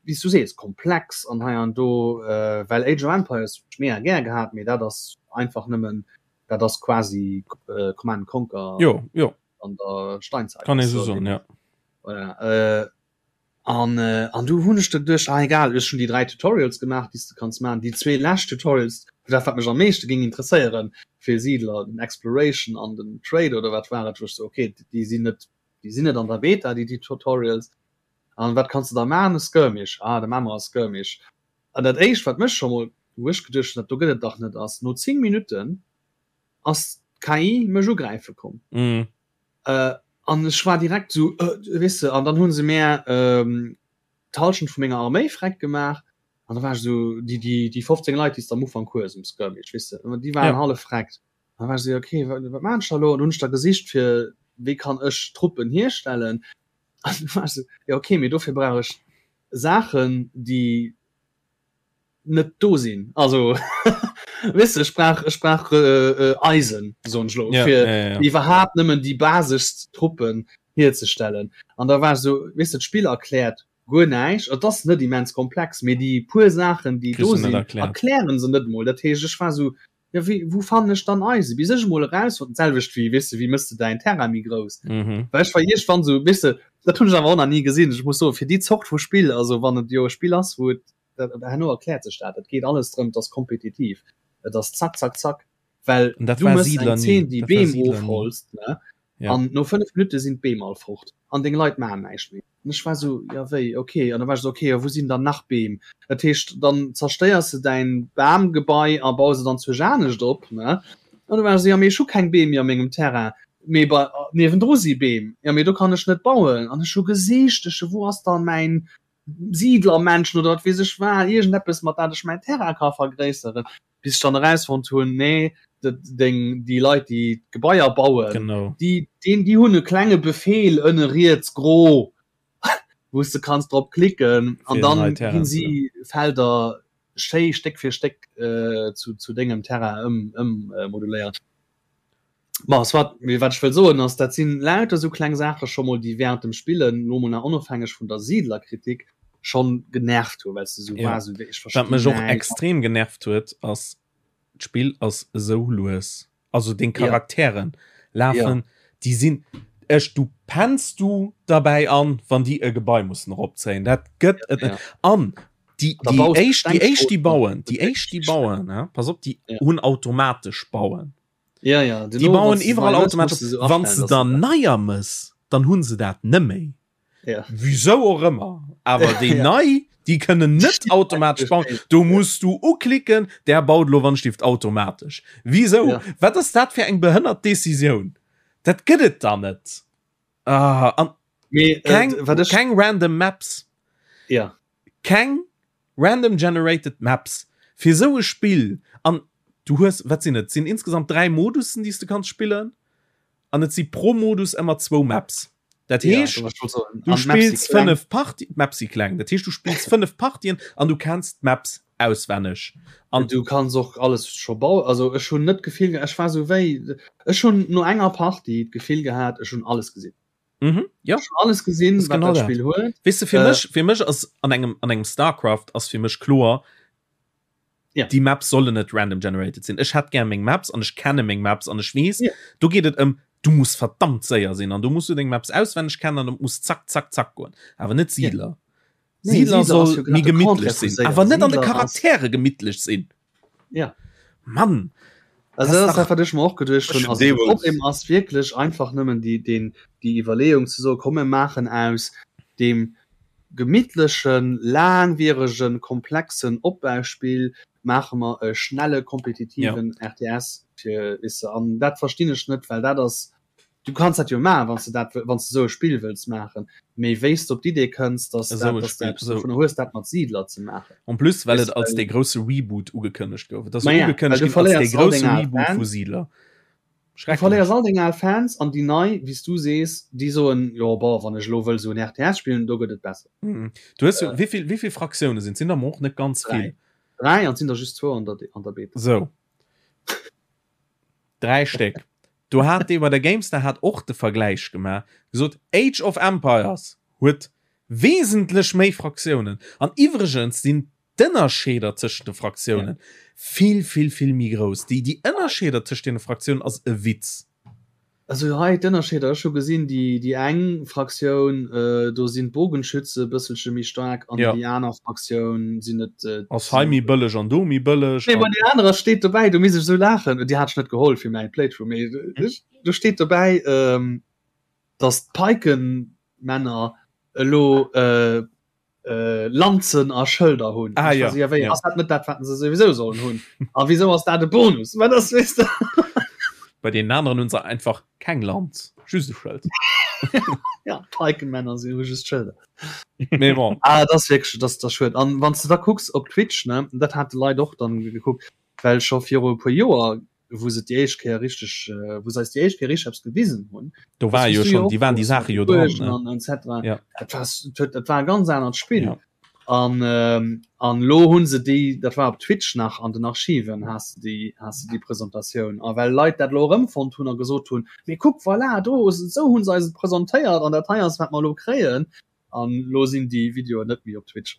wéi s du sees, komplex an hei an do, well Age of Empires hunn ech mega gär gehat, mee dat ass einfach nëmmen, dat ass quasi Command and Conquer. Jo, jo. an der Steinzeit. Kann ee sou soen, ja. Voilà, äh, an, äh, an du hunn ech da geduecht, ah egal, ech hunn déi 3 Tutorials gemaach, déi s de kanns maachen. Déi zwee lescht Tutorials, dat wat mech am meeschte géing interesséieren fir Siedler, den Exploration an den Trade oder wat war et, wou ech sou, okay, déi sinn net, déi sinn net an der Beta, déi, déi Tutorials. An wat kanns de da maachen? E Skirmish. Ah, da maache mer e Skirmish. An dat éischt, wat mech scho mol, wou ech geduecht hunn, dat do gëtt et dach net, ass no 10 Minutten, ass d'KI mech ugräife komm. Mm. Äh, an ech war direkt so äh, weess de, an dann hunn se mär ähm, d'Halschent vu menger Arméi freck gemaach. An da war ech so, déi, déi, déi 15 Leit, déi s de am Ufank hues um Skirmish, weess de, déi waren Ja. hallef freckt. An da war ech so, okay, wat, wat maan ech da lo? An hunn ech da gesicht fir, wéi kann ech Truppen hierstellen? An du war ech so, ja okay, mee dofir brauch ech Saachen, déi net do sinn also weess de ech brauch ech brauch äh, äh, Eisen soen ech lo Ja, fir ja, ja, ja. iwwerhaapt nëmmen déi baseschst Truppen hierzestellen an da war ech sou weess de d'Spill erkläert guer näischt et ass net immens komplex mee déi puer Saachen déi Kriss do du net sinn erkläert. erklären se net mol dat heescht ech war sou ja wéi wou fannen ech dann Eisen bis ech emol erausfonnt d'selwecht wéi weess de wéi mëss de däin Terrain méi grouss Mhm. well ech war iergendwann sou weess de dat hunn ech awer och nach ni gesinn ech muss soen fir déi Zort vu Spill also wann et jo e Spill ass wou et dat herno erkläert sech dat dat geet alles drëm et ass kompetitiv et ass zack zack zack well An dat du war mëss Siedler eng ni Zeen déi dat war Beem Siedler ni ofholzt ne Ja. an no 5 Minutte sinn d'Beem all fort an deng Leit maachen näischt méi An ech war sou, jo wéi, ok. An da war ech sou, ok, a wou sinn dann nach Beem? Dat heescht, dann zerstéiers de däin Bamgebai a baus et anzwousch anescht op, ne? An du war ech sou, jo mee ech hu keng Beem méi a mengem Terrain, mee bei niewendru si Beem, jo mee do kann ech net bauen. An ech hu gesicht, ech sou, wou ass dann mäin Siedlermännchen oder wat weess ech wat, iergendeppes mat dat ech mäin Terrain ka vergréisseren. bis ech dann erausfonnt hunn, nee, dat deng déi Leit déi d'Gebaier bauen, Genau. déi deen déi hunn e klenge Befeel ënne riets gro, wou s de kanns drop klicken an Fir dann nei ginn Terrainen ze si Felder schéi Stéck fir Stéck äh, zu, zu dengem Terrain ëm, ëm äh, moduléiert. Ma soit, mee wat ech wëll soen ass, dat sinn lauter esou kleng Saache scho mol, déi während dem Spillen, lo mol nach onofhängeg vun der Siedlerkritik, schonn genervt hu, well s de sou Ja. waars, esou wéi ech Wat verstinn mech och näischt. extrem genervt huet, ass, d'Spill ass esou lues. Also deng Ja. Charakteren Ja. lafen, déi sinn, ech, du penns du derbäi an, wann déi e Gebai mussen eropzéien. Dat gëtt et net. Ja. An. Déi, déi éischt, déi éischt, déi bauen, déi éischt, déi bauen, ja, pass op, déi ja. hunn automatesch bauen. Ja, ja, déi bauen iwwerall automatesch. Wann se dann neier mëss, dann hunn se dat nëmméi. Ja. Wieso och ëmmer. Awer déi ja. nei, déi kënnen net automatesch bauen. Du musst du uklicken, der baut lo wann Stift automatesch. Wieso? Ja. Wat ass dat fir eng behënnert Decisioun? Dat gëtt et dann net. Ah, an Mee, äh, keng, äh, keng random Maps. Ja. Keng random generated Maps fir sou e Spill an du hues wat sinn et sinn insgesamt 3 Modussen déi s du kanns spillen an et si pro Modus ëmmer zwou Maps. Dat heescht ja, du spills 5 Parti d'Maps si kleng, dat heescht du spills 5 Partien an du kenns d'Maps auswenneg an du kanns och alles scho bauen. Also ech hunn net d'Gefill ech war sou wéi ech hunn no enger Partie d'Gefill gehat ech hunn alles gesinn. Mhm, ja. Ech hunn alles gesinn wat dat Spill huet. Weess de fir äh, mech fir mech ass an engem an engem Starcraft ass fir mech kloer ja. déi Maps sollen net random generated sinn. Ech hätt gär meng Maps an ech kenne meng Maps an ech weess ja. do geet et ëm du muss verdammt séier sinn an du musst du deng Maps auswenneg kennen an muss zack zack zack goen awer net Siedler. Ja. Siedler soll méi gemittlech sinn, awer net an de Charaktere gemittlech sinn. Ja. Mann! Also das ass dat, wat ech mer och geduecht hunn. Also de Problem ass wierklech einfach nëmmen déi, deen, déi Iwwerleeung ze soen, komm mir maachen aus deem gemittlechen, laangwieregen, komplexen Opbauspill maache mer e schnelle kompetitiven RTS fir, weess de. An dat verstinn ech net, well dat ass Du kanns dat jo maachen, wann s de dat, wann s de esou e Spill wëlls maachen, mee wéi s de op d'Idee kënns, dass Esou dat, e dass de Spill, eppes esou. dovunner hues, dat mat Siidler ze maachen. En plus, well Weess et de, als well. dee grousse Reboot ugekënnegt gouf. Et ass Ma jo ja, well ugekënnegt du ginn als dee verléiers all grousse deng al Reboot vu Fans. Siidler. Du Schrecklech. verléiers all deng al Fans an déi nei, wéi s du sees, déi soen, jo bon, wann ech elo wëll esou en RTS spillen, do gëtt et besser. Mhm. Du hues jo, wéi vill, wéi vill Fraktioune sinn et? Sinn der mer och net ganz Dräi. vill. Dräi, an et sinn der just zwou an der, an der Beta. Sou. Dräi Stéck. Do hat dee bei der Gamestar hat och de Vergläich gemaach, gesot Age of Empires huet wesentlech méi Fraktiounen an iwwregens sinn d'Ënnerscheeder tëschent de Fraktiounen vill vill vill méi grouss. Déi déi Ënnerscheeder tëschent deene Fraktiounen ass e Witz. Also hei d'Ënnerscheeder, ech hu gesinn, déi déi eng Fraktioun, do sinn d'Bogenschütze e bësselche méi staark an Ja. déi aner Fraktioun sinn et. Ass hei méi bëlleg an do méi bëlleg. Nee, ma déi anerer steet dobäi, do misst ech esou laachen, déi hat ech net geholl fir mäi Playthrough, mee do steet dobäi, datt d'Pikenmänner elo äh, Lanzen a Schëlder hunn. Ah, ja, ja, wéi, ja. Ass dat net dat, wat se souwisou sollen hunn? A wieso ass dat e Bonus? Wat ass, weißt du? Bei den anderen hunn se einfach keng Lanz, just e Schëld. Ja, Pikenmänner sinn hu just Schëlder. Mee bon. Ah, dat ass wierklech, dat ass schued. An wann s de da kucks op Twitch, ne, dat hat de Leit och dann gekuckt, well scho viru e puer Joer wou se déi éischt Kéier richteg, wou se eis déi éischt Kéier richteg eppes gewisen hunn. Do war jo schon, déi waren déi Saache jo dran. Ne? An etc. Ja. Dat war, dat war e ganz anert Spill. Ja. An, ähm, an lo hunn se déi, dat war op Twitch nach an den Archiven, has de déi, has de déi Presentatioun. A well Leit dat lo erëmfonnt hunn a gesot hunn, mee kuck, voilà, do, esou hunn se eis et presentéiert an dat hei ass, wat mer elo kréien. An lo sinn déi Videoen net méi op Twitch.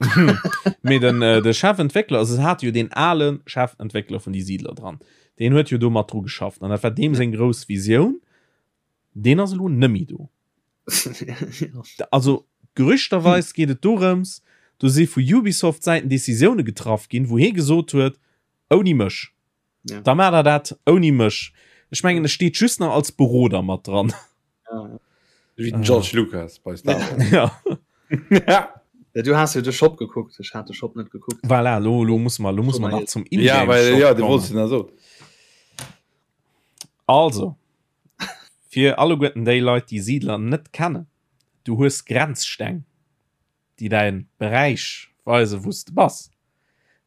Mee den, äh, de Chefentwéckler, also se hate jo deen ale Chefentwéckler vun die Siedler dran. Deen huet jo do mat dru geschafft an dat war deem seng grouss Visioun. Deen ass elo nëmmi do. Also gerüchterweis geet et dorëms, do si vu Ubisoft Säiten Decisioune getraff ginn, wou hee gesot huet, ouni mech. Ja. Da maacht der dat ouni mech. Ech mengen, e steet just nach als Beroder mat dran. Ja. Wéi den George Lucas bei Star Wars. Ja. ja. Ja, du hast jo de Shop gekuckt, ech hat de Shop net gekuckt. Voilà, lo, lo muss man, lo muss man nach zum Ja, well, ja, du wolltest den so. Also, fir alleguerten déi Leit, déi Siedler net kennen, du hues Grenzsteng. déi däin Beräich weisen wou s de bass.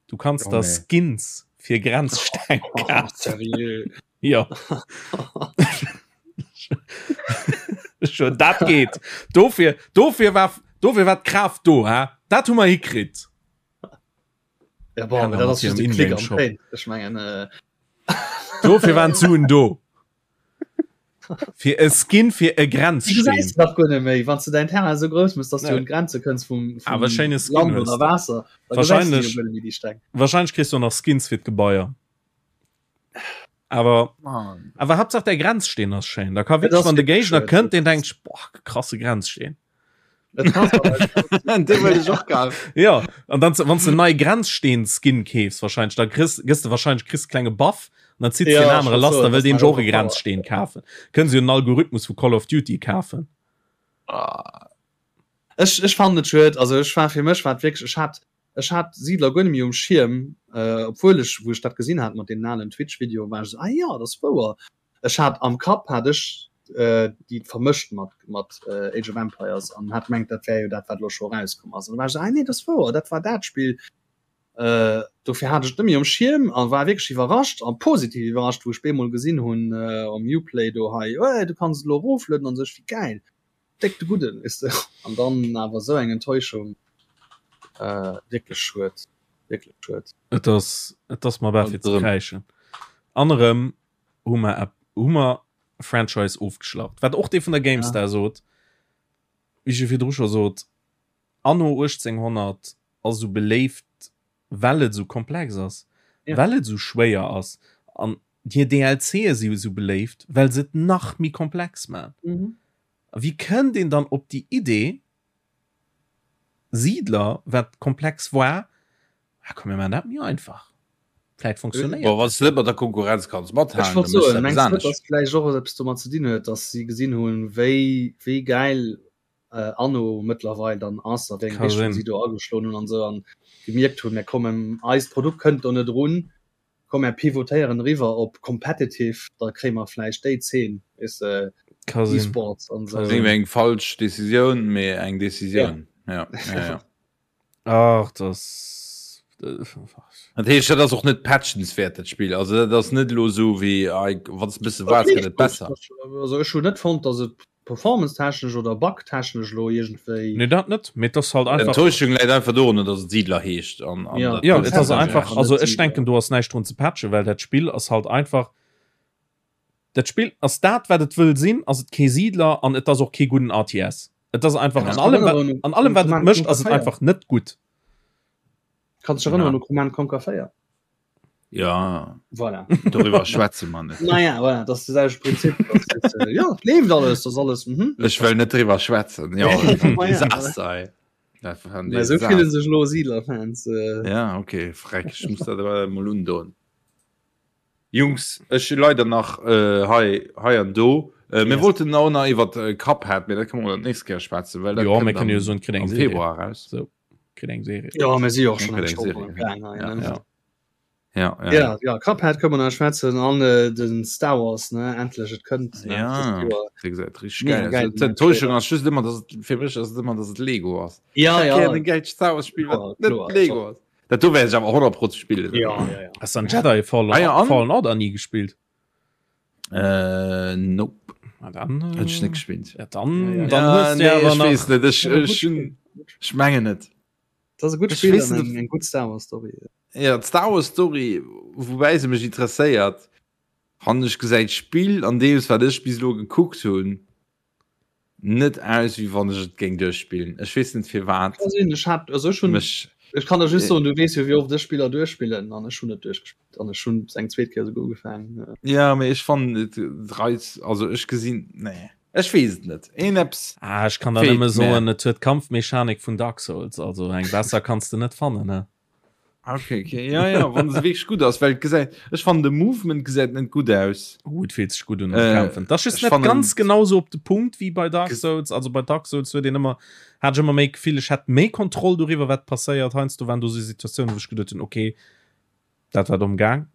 Du kanns der Skins fir Grenzsteng kafen. Jo. Schon dat geet. Dofir, dofir war, dofir war d'Kraaft do, hä? Dat hu mer hikritt. Ja, bon, dat ass just e Klick am Paint. Ech mengen, äh... Dofir waren d'Suen do. Fir e Skin fir e Grenzsteen. Du gesäis nach guer net méi, wann s du däin Terrain esou grouss mëss, dass du un d'Grenze kënns vum, vum Awer schéine Skin Land hues oder de. Waasser. Da gesäis du Wahrscheinlech, jo guer net méi déi Steng. wahrscheinlech kriss du och nach Skins fir d'Gebaier. Awer, Mann. awer Haaptsaach däi Grenzsteen ass schéin. Da ka Et wierklech, ass wann de wierklech Géigner schued. kënnt, deen denkt sech, boah, krasse Grenzsteen. Ja an dann wann du nei Grenzsteen Skin keefs wahrscheinlich da kriss gëss du wahrscheinlich kriss klenge Buff an dann zitt ja, den anere lass da will den Genre Grenzsteen kafen. Kënnen se en Algorithmus vu Call of Duty kafen. Ah. Ech, ech fand et schued, also ech war fir mech war wierklech ech hat ech hat Siedler guer net méi um Schierm, äh, obwuel ech wou ech dat gesinn hat mat deenen alen Twitch Video war ech so, ah ja, dat ass wouer. Ech hat am Kapp hat ech déi vermëscht mat mat Age of Empires an hat mengt dat wär jo dat wat lo scho rauskomm ass. An da war ech esou, ah nee dat ass wouer, dat war dat Spill. Dofir hat ech et net méi um Schierm a war wierklech iwwerrascht a positiv iwwerrascht wou ech bemol gesinn hunn um Uplay do hei, oh du kanns et elo eroflueden an sou, ech wéi gäil, déck de gudden weess de. An dann awer esou eng Enttäuschung, wierklech schued, wierklech schued. Et ass et ass mer bal fir ze kräischen. An erëm hu mer hu mer e Franchise ofgeschlacht. Wat och dee vun der GameStar ja. sot, wéi ech jo virdru scho sot, Anno 1800 ass esou beléift, well et esou komplex ass, ja. well et esou schwéier ass. An hir DLCe si esou beléift, well se et nach méi komplex man. Mhm. A wéi kënnt een dann op déi Idee, Siedler, wat komplex war, ah komm mir maachen dat méi einfach, vläit funktionéiert dat. Wann s de net mat der Konkurrenz kanns mathalen, Ech wollt soen, mengs de net, dass vläicht och eppes domat ze dinn huet, dass si gesinn hunn, wéi wéi gäil Anno mëttlerweil dann ass a wéi eng Richtung si do ageschloen hunn an esou an gemierkt hunn, mir kommen, eist Produkt kënnt do net erun, Komm mär pivotéieren eriwwer op competitive, da kréie mer vläicht déi Zeen, weess de, E-Sports an esou. Eng eng falsch Decisioun, mee eng Decisioun. Ja. Ja, ja. Ach, das. Dat heescht, dat ass och net patchenswäert, dat Spill. Also dat ass net elo esou wéi, wann s de e bësse waarts, gëtt et besser. Also ech hunn net fonnt, datt et Performance-technesch oder Bug-technesch elo iergendwéi. Nee, dat net, mee et ass halt einfach. D'Enttäuschung läit einfach dorunner, datt et Siedler heescht an, an ja. Ja, et ass einfach, also ech denken, do ass näischt drun ze patchen, well dat Spill ass halt einfach, dat Spill ass dat, wat et wëll sinn, ass et kee Siedler an et ass och kee gudden RTS. Et ass einfach an allem, wat, an allem, wat et mécht, ass et einfach net gutt. Kanns dech erënneren u Command Conquer 4? Ja voilà. Doriwwer schwätze mer net. Naja, voilà, das ist das Prinzip. Das ist, äh, ja, lebt alles, das alles. Mhm. Ech well net driwwer schwätzen. Ja, Desaster. So fillen sech lo Siedlerfans. Äh. Ja, okay, freck, ich muss dat mol undoen. Jungs, ech leider nach äh, hei, hei an do. Äh, mir yes. wollten auch nach iwwer äh, Cuphead, mee dat kann man nächst Kéier schwätzen, well dat ja, mir können jo so eng Februar raus. So. Kritt eng Serie. Ja, mir si och schon eng Stonn gaang hei, ne? Ja. Ja, ja. Ja, ja, Cuphead kënne mer nach schwätzen an äh, den Star Wars, ne? Endlech, et kënnt. Ne? Ja, wéi gesagt, richtig geil. geil. D'Enttäuschung ass just ëmmer, dass et, fir mech ass et ëmmer, dass et Lego ass. Ja, ja. Gär en gäilt Star Wars Spill, wat net Lego ass. Dat do wäert ech awer 100 Pro spillen. Ja, ja, ja. Hast du an Jedi Fallen, ah, ja, an? Fallen Order nie gespielt? Äh, nope. Na dann, äh, Hätt ech net gespielt. Ja, dann, ja, dann ja, hues du nee, awer ech nach. weess net. Ech, ech, hun, ech mengen net. Dat ass e gutt Ech Spill weess an net, eng, eng gutt Star Wars Story. Ja, d'Star Wars Story, woubäi se mech interesséiert, fannen ech gesäit d'Spill an deems wat ech bis elo gekuckt hunn, net aus wéi wann ech et géing duerchspillen. Ech weess net firwat. Kann sinn, ech hat, also ech hunn, Mech, ech kann der just soen, du weess jo wéi oft ech Spiller duerchspillen an ech hunn et duerchgespillt an ech hunn es eng zweet Kéier esouguer ugefaangen. Ja, mee ech fannen et reizt, also ech gesinn, nee, ech weess et net, een eppes Ah, ech kann der feelt nëmme mir. soen, et huet d'Kampfmechanik vun Dark Souls, also eng besser kanns de net fannen, ne? Okay, okay. Ja, ja, wann se wierklech gutt ass, well et gesäit, ech fannen de Movement gesäit net gutt aus. Oh, et fillt sech gutt un am Äh, Kämpfen. Dat ass just ech net fannen ganz genau sou op de Punkt wéi bei Dark ges- Souls. Also bei Dark Souls huet een ëmmer, hat ech ëmmer méi d'Gefill, ech hätt méi Kontroll doriwwer, wat passéiert. Heiansdo waren do sou Situatiounen, wou ech geduet hunn, okay, dat war domm gaang.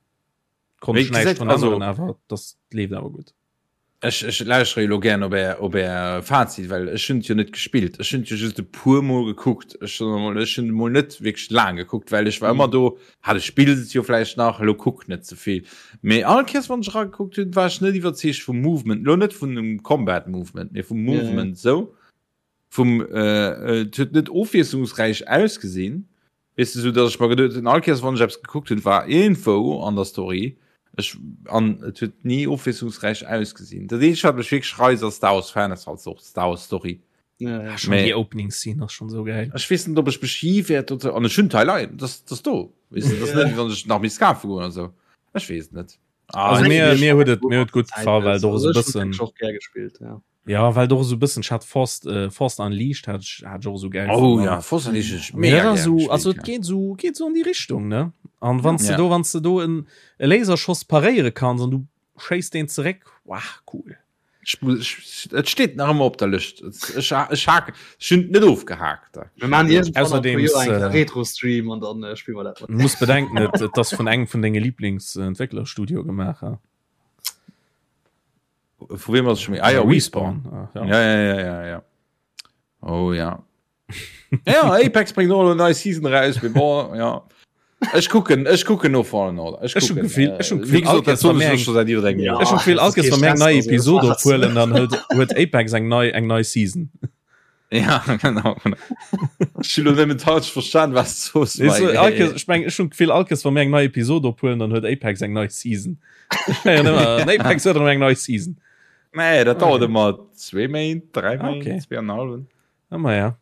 Konnt Mee ech näischt gesäit, dran also änneren, awer das leeft awer gutt. Ech, ech lauschtere jo lo gären op är, op är Fazit, well ech hunn et jo net gespillt. Ech hunn et jo just e puer Mol gekuckt. Ech soen emol, ech hunn emol net wierklech laang gekuckt, well ech war ëmmer do, ha du spills et jo vläicht nach, elo kuck net ze vill. Mee all Kéiers wann ech eragekuckt hunn, war ech net iwwerzeegt vum Movement, elo net vun dem Combat Movement, mee vum Movement esou. Vum, et huet net ofwiesslungsräich ausgesinn, weess de, sou datt ech mer geduet hunn, all Kéiers wann ech eppes gekuckt hunn, war iergendwou an der Story, ech, an et huet ni ofwiesslungsräich ausgesinn. Dat eenzegt wat mech wierklech reist als Star Wars Fan ass halt och d'Star Wars Story. Ja, ja. Schon Mee déi Opening Scene ass schon sou geil. Ech weess net ob ech mech hi wäert dozou, an ech hunn d'Teil hei, dat ass do, weess de, dat ass net wéi wann ech nach misst kafe goen oder sou, ech weess et net. Ah, Also mir, mir huet et, mir huet gutt gefall, well do ass e bëssen. Och gär gespillt, ja. Ja well doch so bëssen hat Force äh, Force Unleashed hat ich, hat ich och so geil oh ja Force Unleashed mega so also et geht so geht so an die Richtung ne an wann ja. du do wann du do en e Laserschoss paréiere kanns an du schéiss den zeréck wow, cool Et steet nach ëmmer op der Lëscht. Ech ech hake ech hunn net ofgehakt. Mir maachen iergendwann an e puer Joer eng Retro-Stream an dann äh, spille mer dat. Du muss bedenken, et, et ass vun engem vun denge Lieblingsentwécklerstudio gemaach. Ha? Vu wem ass schon méi? Ah ja, Respawn. Ah, ja. Ja, ja, ja, ja, ja. Oh ja. Ja, Apex bringt och elo nei Season raus, mee bon, ja. Ech kucken, ech kucken no Fallen Order. Ech kucken. Gefill, ech hun Gefill, all Kéiers, wa mir eng, ech hun Gefill, all Kéiers, wa mir eng nei Episode ophuelen, dann huet, huet Apex eng nei, eng nei Season. Ja, genau, genau. Ech hun lo nëmmen falsch verstan, was du soos. Weess du, all Kéiers, ech meng, ech hun Gefill, all Kéiers, wa mir eng nei Episode ophuelen, dann huet Apex eng nei Season. Ech mengen ëmmer, Apex huet erëm eng nei Season. Nee, dat dauert ëmmer zwee Méint, dräi Méint, Okay. zwee an en hallwen. Ah, ma ja.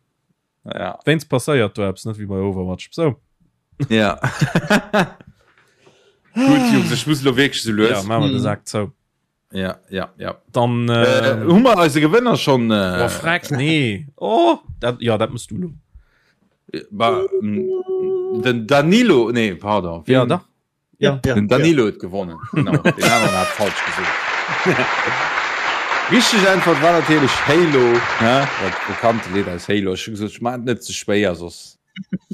Ja. Wéinst passéiert do eppes net wéi bei Overwatch. So. Ja. Gut, Jungs, ech muss lo wierklech sou lues. Ja, machen wir den Sack zou. Ja, ja, ja. Dann äh, äh, hu mer eise Gewënner schon äh, oh, freck, nee. Oh, dat, ja, dat musst du lo. Ba, den Danilo, nee, pardon. Ja, da. Ja, ja, Den Danilo huet gewonnen. Genau. Den aneren hat falsch gesot. Richteg Äntwert war natierlech Halo, ne? Dat bekannte Lidd aus Halo. Ech hu gesot, ech maachen et net ze schwéier, soss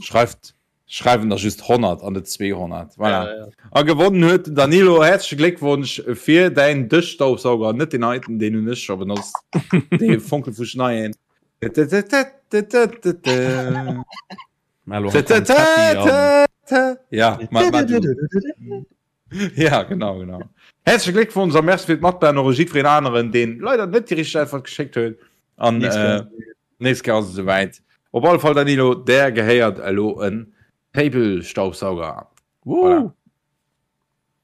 schreift, schreiwen der just 100 an net 200. Voilà. Ja, ja. A gewonnen huet den Danilo. Häerzleche Gléckwonsch fir däin Dëschstaubsauger. Net deen heiten, deen hunn ech scho benotzt. Dee fonkelfuschneien. Ja, ja genau genau. Herzliche Gléckwonsch a Merci fir d'Matbahn och jiddwereen aneren, deen leider net déi richteg Äntwert geschéckt huet. An äh, nächst Kéier ass et esouwäit. Op alle Fall Danilo, där gehéiert elo en Table-Staubsauger. Voilà.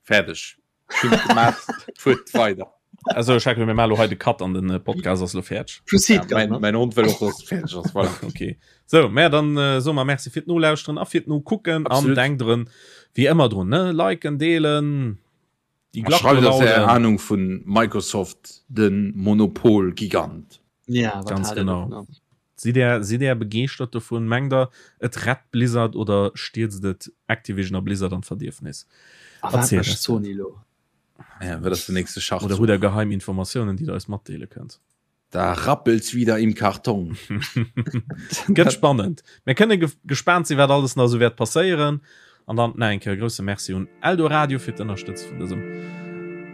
Fäerdeg. Fuert weider. Also ech mir malo hei de Cut an den äh, Podcast ass lo fäerdeg. Proceed, Ja, mein, mein Hond wëll och dass et fäerdeg ass. Voilà. Okay. So, mä dann äh, so mer Merci fir d'Nolauschteren a fir d'Nokucken an denkt drun, wéi ëmmer drun, ne? Liken, deelen, déi A Glach schreift eis är belauden. Ahnung vun Microsoft, den Monopol-Gigant. Ja, wat Ganz haalt der genau. dovun? Sidd är, sidd är begeeschtert dovun? Mengt der, et rett Blizzard oder stierzt et Activision a Blizzard an d'Verdierfnis? A wat Erzielt mécht eis dat. Sony elo? Ja, wat ass den nächste Oder Schachzuch? hutt der geheim Informatiounen, déi der eis matdeele kënnt? Da rappelt's wieder im Karton. Gëtt spannend. Mir kënne ge gespaant sinn, wat alles nach esou wäert passéieren. An dann nach eng Kéier e grousse Merci un Eldoradio fir d'Ënnerstëtze vun dësem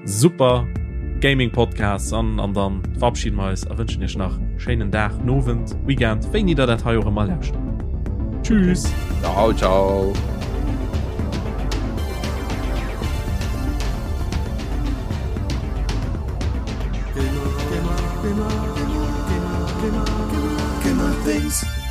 super Gaming Podcast. An, an dann verabschieden wir eis a wënschen iech nach schéinen Dag, Nowend, Weekend, wéini der dat hei och ëmmer lauschtert. Tschüss! Ciao, ciao! Gamer, Gamer, Gamer, Gamer, Gamer, Gamer, Gamer, Gamer Things.